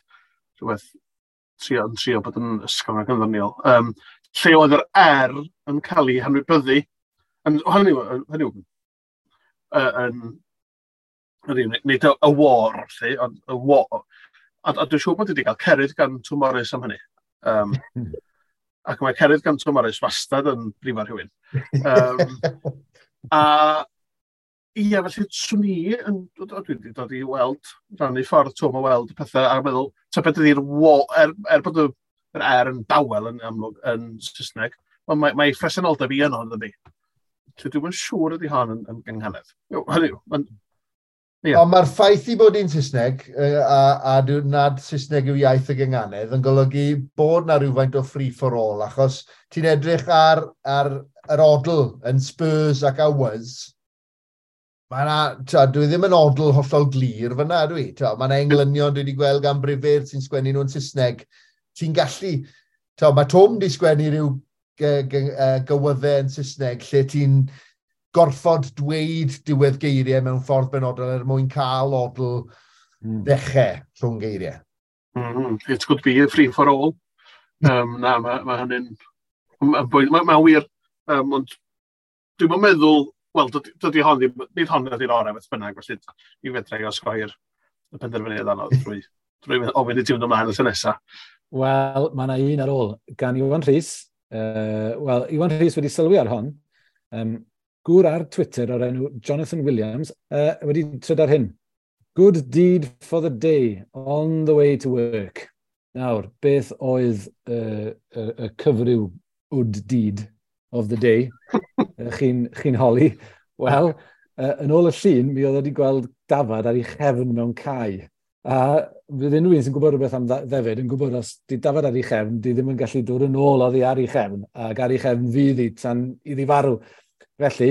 rhywbeth yn trio bod yn ysgafn ac yn ddoniol. Lle oedd yr R yn cael ei hanwybyddu, yn, hynny yw, yn, nid y war, lle, ond y war. A dwi'n siŵr bod wedi cael cerydd gan Twm Morris am hynny. Ac mae cerydd gan Twm Morris wastad yn brifo rhywun. A ie, felly swn i yn, dwi wedi dod i weld, rannu ffordd Twm o weld y pethau a meddwl, tybed ydy'r wo, er bod yr R yn dawel yn amlwg yn Saesneg, ond mae phresenoldeb i yno, ydy. Felly dwi'm yn siŵr ydy hon yn gynghanedd. Hynny yw, ie. Ond mae'r ffaith i bod hi'n Saesneg, a nad Saesneg yw iaith y gynghanedd, yn golygu bod na rhywfaint o free for all, achos ti'n edrych ar yr odl yn Spurs ac Hours, mae na, dwi ddim yn odl hollol glir fyna, dwi. Mae yna englynion dwi wedi gweld gan brifeirdd sy'n sgwennu nhw'n Saesneg. Ti'n gallu, mae Twm wedi sgwennu rhyw gywyddau yn Saesneg lle ti'n gorfod dweud diwedd geiriau mewn ffordd benodol er mwyn cael odl ddechrau rhwng geiriau. It could be a free for all. Na, mae hynny'n... Mae'n ma wir, ond dwi'n meddwl, wel, dydy hon ddim, nid hon ydy'r orau beth bynnag, felly i fedra i osgoi'r y penderfyniad anodd drwy ofyn i ti fynd ymlaen y tro nesaf. Wel, mae yna un ar ôl gan Iwan Rhys. Wel, Iwan Rhys wedi sylwi ar hon. Gŵr ar Twitter o'r enw Jonathan Williams wedi trydar hyn. "Good deed for the day, on the way to work." Nawr, beth oedd y cyfryw good deed of the day? Chi'n holi? Wel, yn ôl y llun, mi oedd wedi gweld dafad ar ei chefn mewn cae. A fydd unrhyw un sy'n gwybod rhywbeth am ddefyd yn gwybod os di dafad ar ei chefn, di ddim yn gallu dod yn ôl oddi ar ei chefn, ac ar ei chefn fydd hi tan iddi farw. Felly,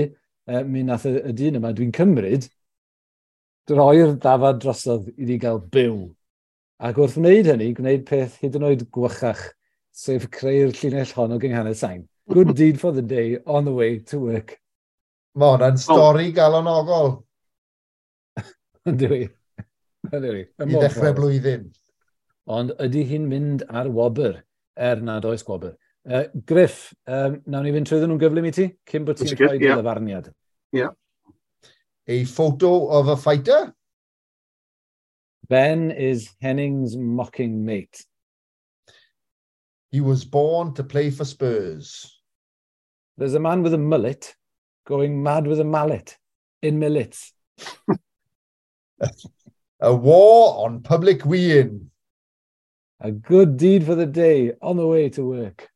mi nath y dyn yma, dwi'n cymryd, droi'r dafad drosodd iddi gael byw. Ac wrth wneud hynny, gwneud peth hyd yn oed gwychach, sef creu'r llinell hon o gynghanedd sain. "Good deed for the day, on the way to work." Mae hwnna'n stori galonogol. Ynddi. Ynddi. I ddechrau blwyddyn. Ond ydy hi'n mynd ar wobr, er nad oes gwobr? Griff, nawn ni fynd trwyddyn nhw'n gyflym i ti, cyn bod ti'n rhoi dy ddyfarniad. Ie. A photo of a fighter? "Ben is Henning's mocking mate." He was born to play for Spurs. There's a man with a mullet going mad with a mallet in millets. A war on public weeing. A good deed for the day, on the way to work.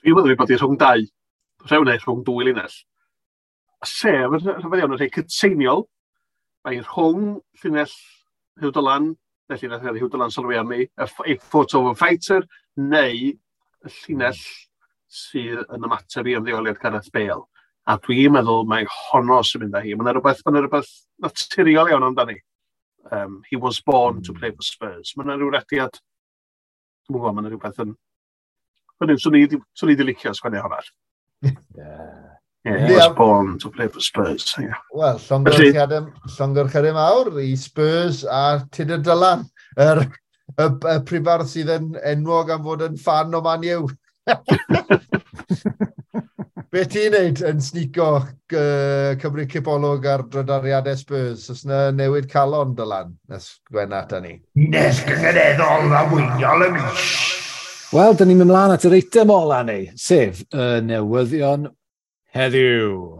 Dwi'n meddwl bod hi rhwng dau, rhew neu rhwng dwy linell. Sef, yn rhyfedd iawn, yn rhai cytseiniol. Mae rhwng llinell Huw Dylan, neu llinell Huw Dylan sylwi arni, a photo of a fighter, neu y llinell sydd yn ymateb i ymddeoliad Gareth Bale. A dwi'n meddwl mai honno sy'n mynd â hi. Mae'n rhywbeth naturiol iawn amdani. "He was born to play for Spurs." Mae'n rhyw rediad, dwi'n gwybod, mae'n rhywbeth yn... Hynny, swn i wedi licio sgwennu hwnna. Yeah, "He was born to play for Spurs." Yeah. Wel, llongyfarchiadau mawr i Spurs a Tudur Dylan, y prifardd sydd yn enwog am fod yn ffan o Man U. Be ti'n neud yn sneako cymryd cipolwg ar drydariadau Spurs? Oes yna newid calon, Dylan, nes Gwenna ata ni? Llinell gynganeddol arweiniol y mis. Wel, dyn ni'n mynd mlaen at yr eitem ola ni, sef y newyddion heddiw.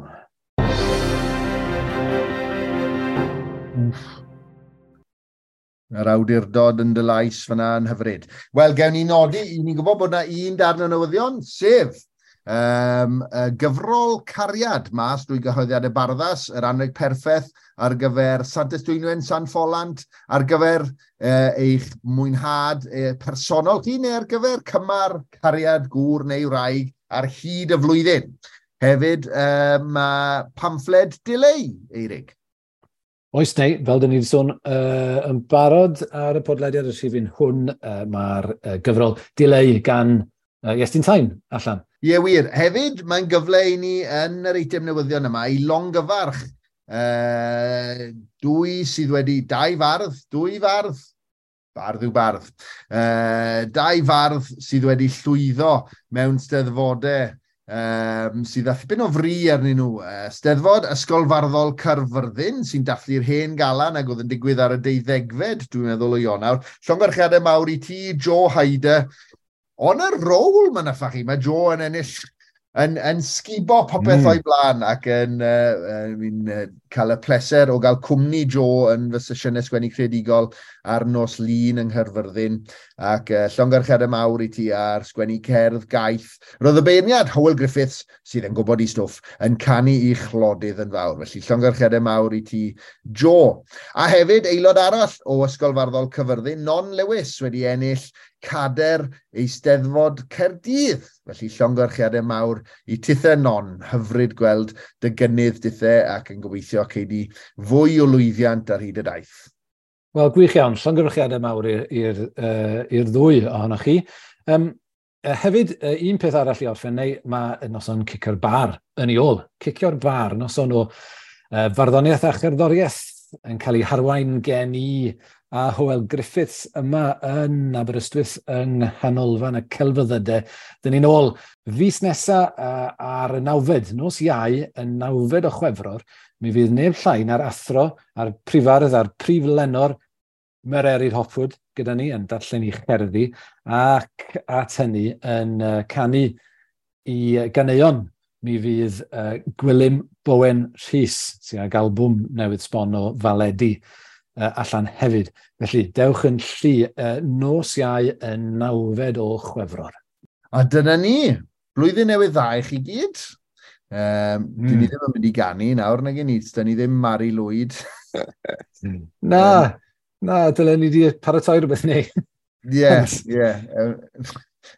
Yr awdurdod yn dy lais fyna yn hyfryd. Wel, gewn ni nodi, i ni'n gwybod bod yna un darn o newyddion, sef gyfrol Cariad mas drwy gyhoeddiadau Barddas, yr anrheg perffaith ar gyfer Santes Dwynwen, San Ffolant, ar gyfer eich mwynhad personol chi, neu ar gyfer cymar cariad gŵr neu wraig ar hyd y flwyddyn. Hefyd, mae pamffled Dileu, Eirig. Oes neu, fel dyn ni wedi sôn yn barod ar y podlediad y rhifyn hwn, mae'r gyfrol Dileu gan Iestyn Tyne allan. Ie, wir. Hefyd, mae'n gyfle i ni yn yr eitem newyddion yma i longyfarch dwy sydd wedi, dau fardd, dwy fardd, bardd yw bardd, dau fardd sydd wedi llwyddo mewn steddfodau sydd â thipyn o fri arnyn nhw. Steddfod Ysgol Farddol Caerfyrddin sy'n dathlu'r hen galan ac oedd yn digwydd ar y 12fed, dwi'n meddwl, o Ionawr. Llongyfarchiadau mawr i ti, Joe Hyder. On a roll, mae'n affa chi. Mae Joe yn ennill, yn sgubo popeth o'i blaen ac yn cael y pleser o gael cwmni Joe yn fy sesiynau sgwennu creadigol ar nos Lun yng Nghaerfyrddin, ac llongyfarchiadau mawr i ti ar sgwennu cerdd gaeth. Roedd y beirniad Hywel Griffiths, sydd yn gwybod i stwff, yn canu i chlodydd yn fawr. Felly llongyfarchiadau mawr i ti, Joe. A hefyd, aelod arall o Ysgol Farddol Caerfyrddin, Non Lewis, wedi ennill cader Eisteddfod Caerdydd. Felly llongyfarchiadau mawr i tithe, Non. Hyfryd gweld dy gynnydd dithe ac yn gobeithio cei di fwy o lwyddiant ar hyd y daith. Wel, gwych iawn. Llongyfarchiadau mawr i'r ddwy ohonoch chi. Hefyd, un peth arall i orffen, neu mae noson Cicio'r Bar yn ei ôl. Cicio'r Bar, noson o farddoniaeth a cherddoriaeth yn cael ei harwain gen i a Hywel Griffiths yma yn Aberystwyth yng Nghanolfan y Celfyddydau. Dyn ni'n ôl fis nesa ar y 9fed, nos Iau, y 9fed o Chwefror, mi fydd neb llai na'r athro, a'r prifardd a'r prif lenor Mererid Hopwood gyda ni yn darllen i cherddi ac at hynny yn canu i ganeuon. Mi fydd Gwilym Bowen Rhys, sy'n ag albwm newydd sbon o faledi allan hefyd. Felly, dewch yn llu nos Iau y 9fed o Chwefror. A dyna ni, blwyddyn newydd dda i chi gyd. Dyn ni ddim yn mynd i ganu nawr, nag ni, dyn ni ddim Mari Lwyd. Na, na, dylen ni wedi paratoi rhywbeth ni. Ie, ie.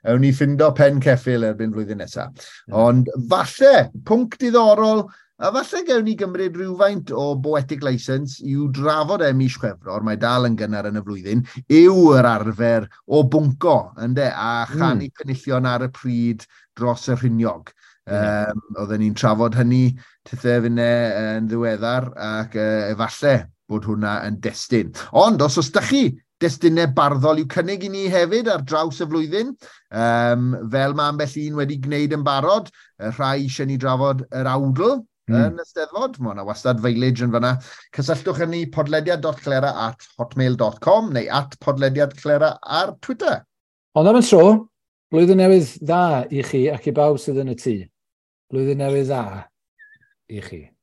Ewn ni ffindo pen ceffyl erbyn flwyddyn nesaf. Ond falle, pwnc diddorol, a falle gewn ni gymryd rhywfaint o poetic license i'w drafod e mis Chwefror, mae dal yn gynnar yn y flwyddyn, yw yr arfer o bwnco, ynde, a chanu penillion ar y pryd dros y rhiniog. Oedden ni'n trafod hynny tithe finne yn ddiweddar ac efallai bod hwnna yn destun. Ond os oes da chi destunau barddol i'w cynnig i ni hefyd ar draws y flwyddyn, fel mae ambell un wedi gwneud yn barod, rhai eisiau ni drafod yr awdl yn y Steddfod, mae yna wastad village yn fanna. Cysylltwch â ni podlediad.clera@hotmail.com neu @podlediadclera ar Twitter. Ond am y tro, blwyddyn newydd dda i chi ac i bawb sydd yn y tŷ. Blwyddyn newydd dda i chi.